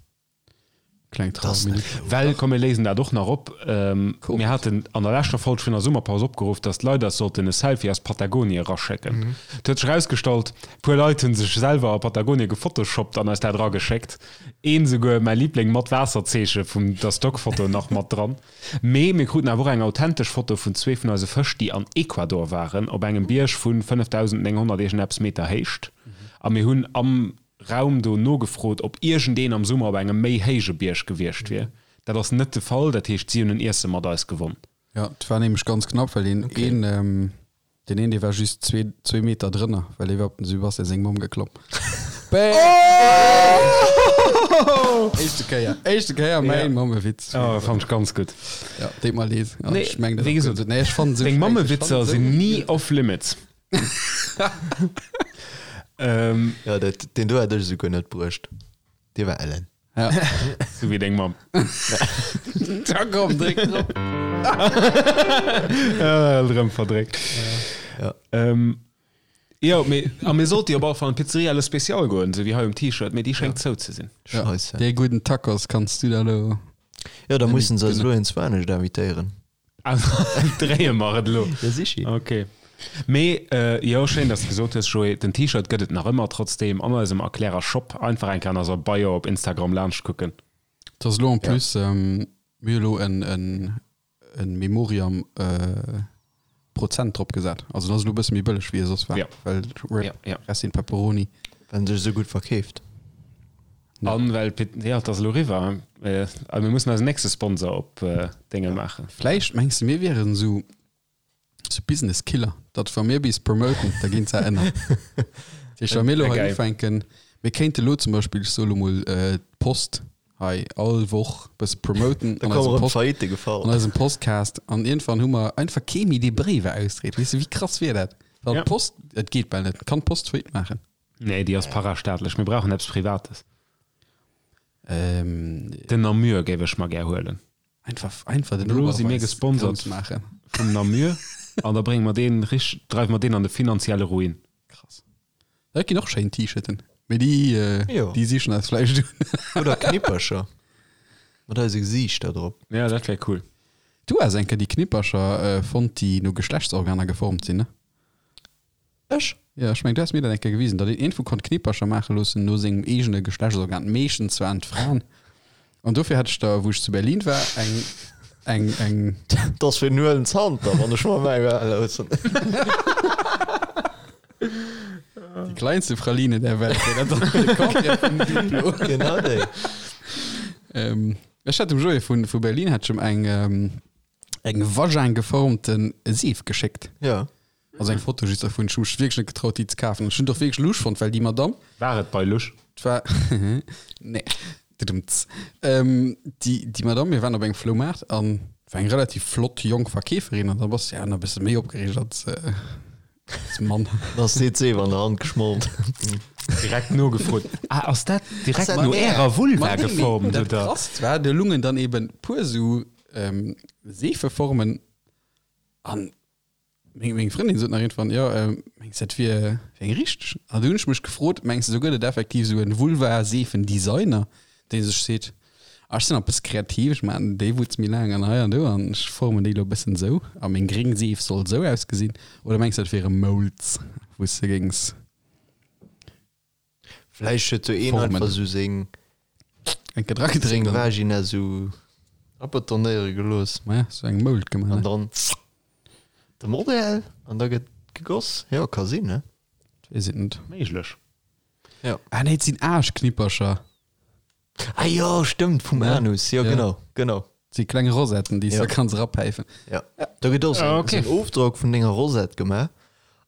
Kleng Das Trauerminute. Well, komm mir léisen dat och nach op, ähm, Cool. mir haten an der leschter Folg vun der Summerpaus opgeruff, dass d'Leit eis sollten e Selfie aus Patagonie eraschécken. Et huet sech erausgestallt, puer Leit hunn sech selwer a Patagonie gefotoshoppt an eis dat erageschéckt. Een souguer, mäi Liebling, mat Waasserzeeche vun der Stockfoto nach mat dran. Mee mir kruten awer och eng authentesch Foto vun zwee vun eise Fësch, déi an Ecuador waren, op engem Bierg vu 5.900 iergendeppes Meter Héicht. A mir hunn am Raum do nogefrot, ob iergendeen am Summer op engem méi héije Bierg gewiescht wier. Dat ass net de Fall, dat heescht, si hunn en Iesse mat eis gewonn. Ja, et war nämlech ganz knapp, well deen een, deen een, dee war just zwee, zwee Meter drënner, well dee war op den Sebastian seng Mamm geklomm. Bäm! Éischte Kéier, éischte Kéier mäin Mammewitz. Oh, fand ech ganz gutt. Ja, deet mer leed. Ja, Nee, ech meng dat wéi och gesot, gutt. Nee, ech fannen esou Deng scheiße. Ech Mammewitzer fannen esou sinn ni off limits. Ähm, Ja, dat, deen do hat ech esouguer net bruecht. Dee war ellen. Ja. Sou wéi deng Mamm. Da komm, dréck drop. Äh, rëm verdréckt. Ja. Ähm, jo, mee, a mir sollte jo op alle Fall an d'Pizzeria Le Special goen, sou wéi hei um T-Shirt, mee déi schéngt zou ze sinn. Ja, Scheisse. dee gudden Tacos kanns du da lo. Ja, da mussen se eis elo eens anescht invitéieren. Also, dréie mer et elo. Ja, sichi. Okay. Mee jo, schéin dass de gesot hues Joé, den T-Shirt gëtt et nach ëmmer trotzdem an eisem Erklärer Shop. Einfach eng Kéier an eiser Bio op Instagram laanscht kucken. Et ass elo en plus, mir hu elo en en Memoriam Prozent drop gesat. Also et ass elo e bësse méi bëlleg wéi e soss war, well rip rest in pepperoni. Well en sech esou gutt verkeeft. An well, jo et ass elo eriwwer, a mir mussen eisen nächste Sponsor op Dénge maachen. Vläicht mengs de mir wieren esou Sou Business Killer, datt wa mir bis promoten, da ginn se ënner. Dat heescht, wa mir elo hei ufänken, mir kéinte lo zum Beispill, ech soe lo mol, d'Post hei all Woch e bësse promoten Da kommen erëm d'Faillite gefall. an eisem Postcast an iergendwann hu mer einfach kee méi, dee Bréiwer ausdreet. Weess de, wéi krass wier dat? Well d'Post, et geet bal net, kann d'Post Faillite maachen? Nee, déi ass parastaatlech. Mir brauchen eppes Privates. Den Namur géif ech mer gär huelen. Einfach, einfach den Elo si mir gesponsert maachen. Vum Namur an da brénge mer deen rich, dreiwe mer deen an de finanzielle Ruin. Krass. Dat ginn och schéin T-Shirten, mee déi, Jo. déi sichen eis vläicht un. Oder Knippercher mat eise Gesiichter drop. Ja, dat wär cool. Du has eng Kéier déi Knippercher fonnt, déi no Geschlechtsorganer geformt sinn, ne? Ech? Jo, ech mengen, du has mir dat eng Kéier gewisen, datt een iergendwou konnt Knippercher maache loossen no sengem eegene Geschlechtsorgan. Meeschtens waren et Fraen. An dofir hat ech der, wou ech zu Berlin war, eng, eng, eng. Dat ass fir den Huelen Zanter, wann ech mer mäi Well loossen. Die kleinste Praline der Welt, wär dat dann de Contraire vum Duplo. Genau déi. Ähm, ech hat dem Joé vun, vu Berlin hat ech em eng, eng Vagin geformten Seef geschéckt. Ja. Also eng Foto just dervun. Ech hu mech wierklech net getraut déi ze kafen. Ech hunn et och wierklech lusch fonnt, well déi Madame. War et bei Lusch? Et war, nee, dudumts. Ähm, déi, déi Madame, mir waren op engem Floumaart an war eng relativ flott jonk Verkeeferin an da bass de ja nach e bësse méi opgereegt als, als Mann. Dann ass dir d'Seef an der Hand geschmolt. Direkt nogefrot, Ah, ass dat direkt no ärer Vulva geformt, Dat oder? Krasst war, do lungen dann eben puer sou, ähm, Seefeformen an Meng, meng Frëndin sot nach irgendwann, jo, mengs dat wier wär eng richteg? An du hunn ech mech gefrot, mengs de, do gëtt et effektiv esou en Vulva-Seefen-Designer, dee sech seet, ah, ech sinn nach e bësse kreativ, ech maachen déi Wutz méi laang an hei an do an ech formen déi elo e bëssen esou a meng gréng Seef soll esou ausgesinn? Oder mengs de, dat wiere Molds, wou s de géings. Vläicht huet sou een Formen. einfach sou seng Eng Kéier dragedréckt seng an Vagina sou abetonéiere gelooss. Maja, sou eng Mould gemaach, An ne? dann de Modell an da gëtt gegoss. Jo, ka sinn, ne? Weess et net. Méiglech. Ja. Ah nee, et sinn Aarschknippercher. Ah jo, stëmmt, vum Ja. Anus. Jo, Ja. genau, genau. Et si kleng Rosetten, déi s Ja. de kanns erapäifen. Ja. Do gëtt och sou Ah, en okay. sou en Ofdrock vun denger Rosette gemaach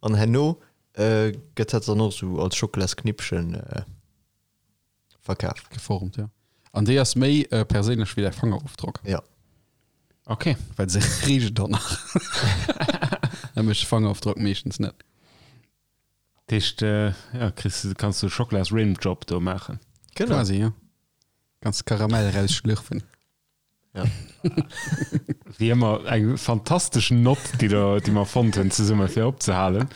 an herno Gëtt dat dann och sou als Schokolasknippchen verkaf? Geformt, jo. An déi ass méi perséinlech wéi däi Fangerofdrock. Ja. Ok. Well se richt dann nach. Dat mécht de Fangerofdrock meeschtens net. Dat heescht, ja, kriss du, kanns du Schokolas-Rimjob do maachen. Genau. Quasi, jo. Kanns Karamell rausschlürfen. Ja. Wéi ëmmer eng fantastesch Nott, déi der, déi mer fonnt hunn zesumme fir opzehalen.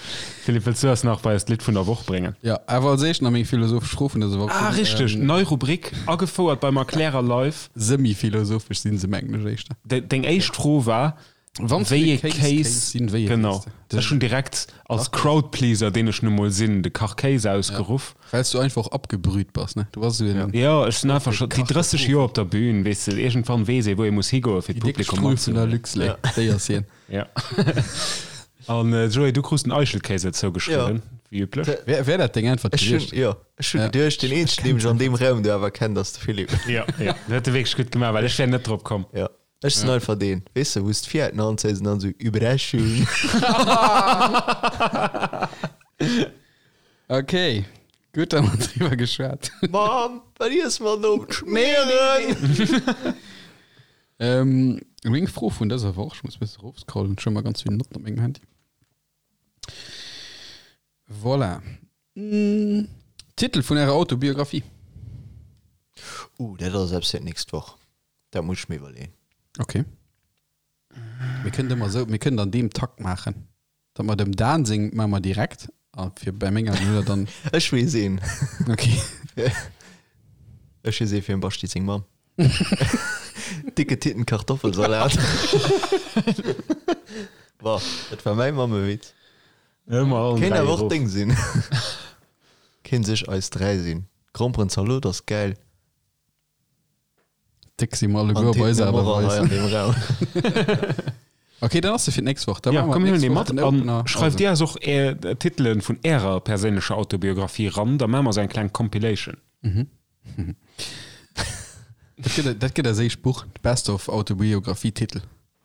Philippe, wëlls du eis nach bei eist Lidd vun der Woch bréngen? Ja, awer als éischt nach meng philosophesch Fro vun dëser Woch. Ah, richteg, Ähm, nei Rubrik, agefouert beim Erklärer live. Semi-philosophesch sinn se, mengen ech éischter. De, deng éischt Fro war, Wann Wéi ee Kéis Kéis kéis sinn, wéi ee Genau. kéis de? Ech hunn direkt als Crowdpleaser, deen ech nu mol sinn, de Kachkéis ausgeruff. Well s du einfach och abgebrüht bass, ne? Du bass esou en. Jo, ech sinn einfach scho déi 30 Joer op der Bühn, weess de, iergendwann weess ee wou ee muss higoe fir Déi déck d'Publikum Strull vun der matzehuelen. Luxlait, déi ass hien. Ja. An Joé, du krus den Eichelkéis zougeschriwwen, wéi üblech. Wär, wär dat deng Äntwert Ech hunn, gewiescht? jo, ech hunn Ja. geduecht, deen eenzegen, dee mech an deem Raum do awer kennt, ass de Philippe. Jo, jo, dat huet e wierklech gutt gemaach, well ech wär net drop komm. Jo. Ech sinn einfach deen, weess de, wou s d'Fiat an anzéis an dann esou Überraschung. Okay, gutt, da hu mer driwwer geschwat. Mamm, wat iesse mer den Owend? Schmieren! Ähm, meng Fro vun dëser Woch, ech muss e bësse erofscrollen, ech hu ëmmer ganz vill Notten op mengem Handy. Voilà. Titel vun ärer Autobiographie? Uh, dat ass eppes fir d'nächst Woch. Dat muss ech mir iwwerleeën. Okay. Mir kënnen ëmmer esou, mir kënnen an deem Takt maachen, datt mer dem Dan seng maache mer direkt a fir bei menger huet er dann. Ech weess een. Okay. Ech weess ee fir dem Basti seng Mamm. Dicke Titten Kartoffelsalat. Bon, dat war mäi Mammewitz. Kéint awer och deng sinn. Kéint sech eis 3 sinn. Gromperenzalot ass gäil. Déck si mer alleguer op eis Aart a Weis. Ok, dann ass se fir d'nächst Woch. Da maache mer d'nächst Woch den Opener. Schreift dir eis och är Titelen vun ärer perséinlecher Autobiographie ran, da maache mer esou eng kleng Compilation. Dat gëtt, dat gëtt eis éischt Buch, d'Best of Autobiographie-Titel.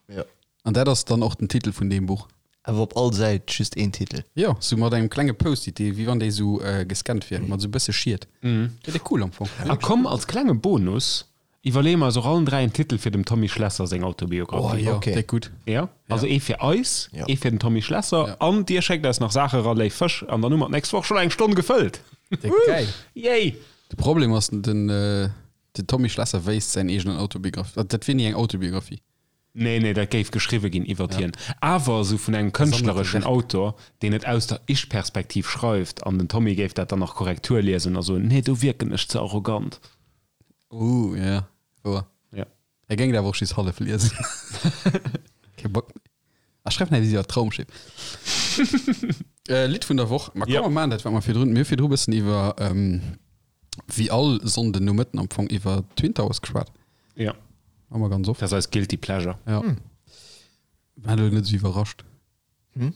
Ja. An dat ass dann och den Titel vun deem Buch. Awer op all Säit just een Titel. Jo, sou mat engem klenge Post-it, dee wéi wann dee sou gescannt wier, mat sou bësse Schiet. Dat wier cool am Fong. A komm, als klenge Bonus iwwerleeë mer eis och allen 3 en Titel fir dem Tommy Schlesser seng Autobiographie. Oh jo, déck gutt. Jo, also ee fir eis, ee fir den Tommy Schlesser an dir schéckt eis nach Saache ra, léif Fësch, an dann hu mer d'nächst Woch schonn eng Stonn gefëllt. Déck gäil. Yay! De Problem ass, den Tommy Schlesser wéisst säin eegenen Autobiographie, dat wier ni eng Autobiographie. Nee, nee, dat géif geschriwwe ginn iwwert hien, awer esou vun engem kënschtlereschen Autor, deen et aus der Ich-Perspektiv schreift, an den Tommy géif dat dann nach Korrektur liesen a soen, nee, do wierken ech ze arrogant. Ooh, ja, wouer. Ja. E géing et awer och just hallef liesen. Kee Bock méi. A schreif nach eppes iwwer d'Raumschiff. Lidd vun der Woch. Ma komm, mer maachen dat, wat mer virdrun, mir hu virdru e bëssen iwwer, wéi all Sonnden Nomëtten am Fong, iwwer Twin Towers geschwat. Ja. Hu mer ganz oft. Dat ass eis guilty pleasure. Ja. War elo net esou iwwerrascht. Hm?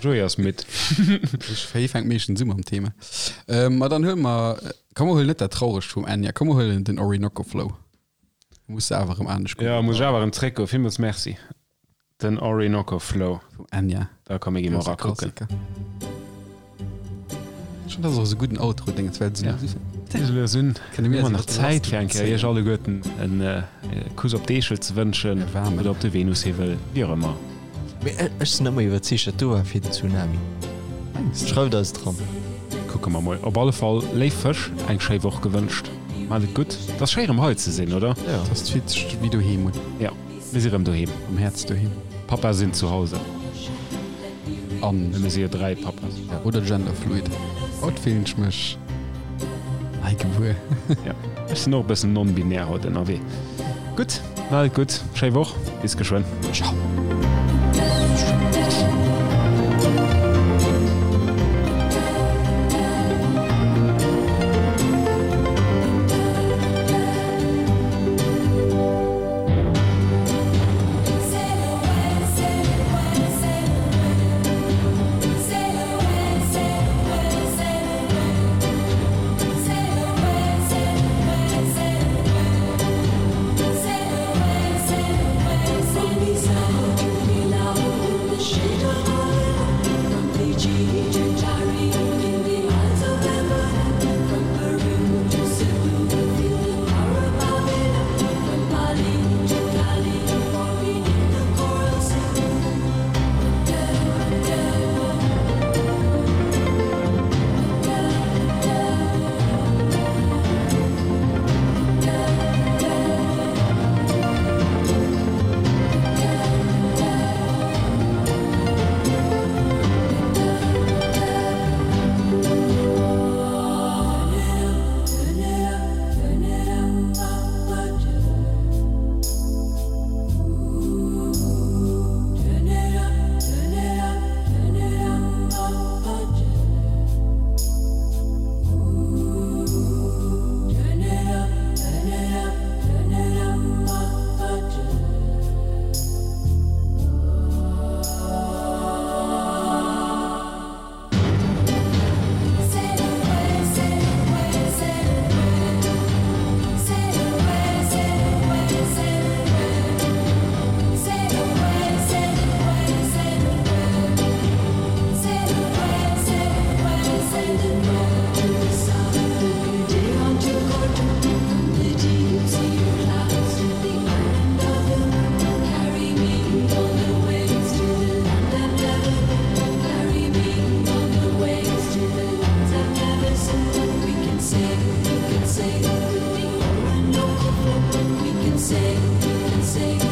Joey ass midd. Ech hie fänkt meeschtens u mam Thema. Ähm, ma dann huele mer, komm mer huelen net dat Trauregt vum Enya, komm mer huelen den Orinoco Flow. Muss se awer erëm anescht goen. Ja, muss ech awer erëm zréckgoen. Villmools Merci. Den Orinoco Flow. Vum Enya. Da komm, mir gi mol erakucken. Ech fannen, dat ass och esou gudden Outro, Déngens, well se lues un. Hu mer nach Zäit fir eng Kéier iech alleguerten en Kuss op d'Eechel ze wënschen oder op de Venushiwwel, wéi och ëmmer. Mee ech sinn ëmmer iwwerzeegt, dat do war fir den Tsunami. Schreift eis et eran. Kucke mer mol. Op alle Fall, léif Fësch, eng schéi Woch gewënscht. Maacht et gutt. Et ass schéi erëm hei ze sinn, oder? Jo. Et ass fillt sech wéi doheem un. Jo, mir si rëm doheem. Am Häerz doheem. Papa sinn zu Hause. An. Mir si jo 3 Papas. Ja, oder genderfluid. Haut fillen ech mech nei gebuer. Ja, ech sinn och e bëssen non-binär haut ënnerwee. Gutt, maacht et gutt, schéi Woch, bis geschwënn. Ciao. Sing, we can sing with the Orinoco flow. We can sing, we can sing.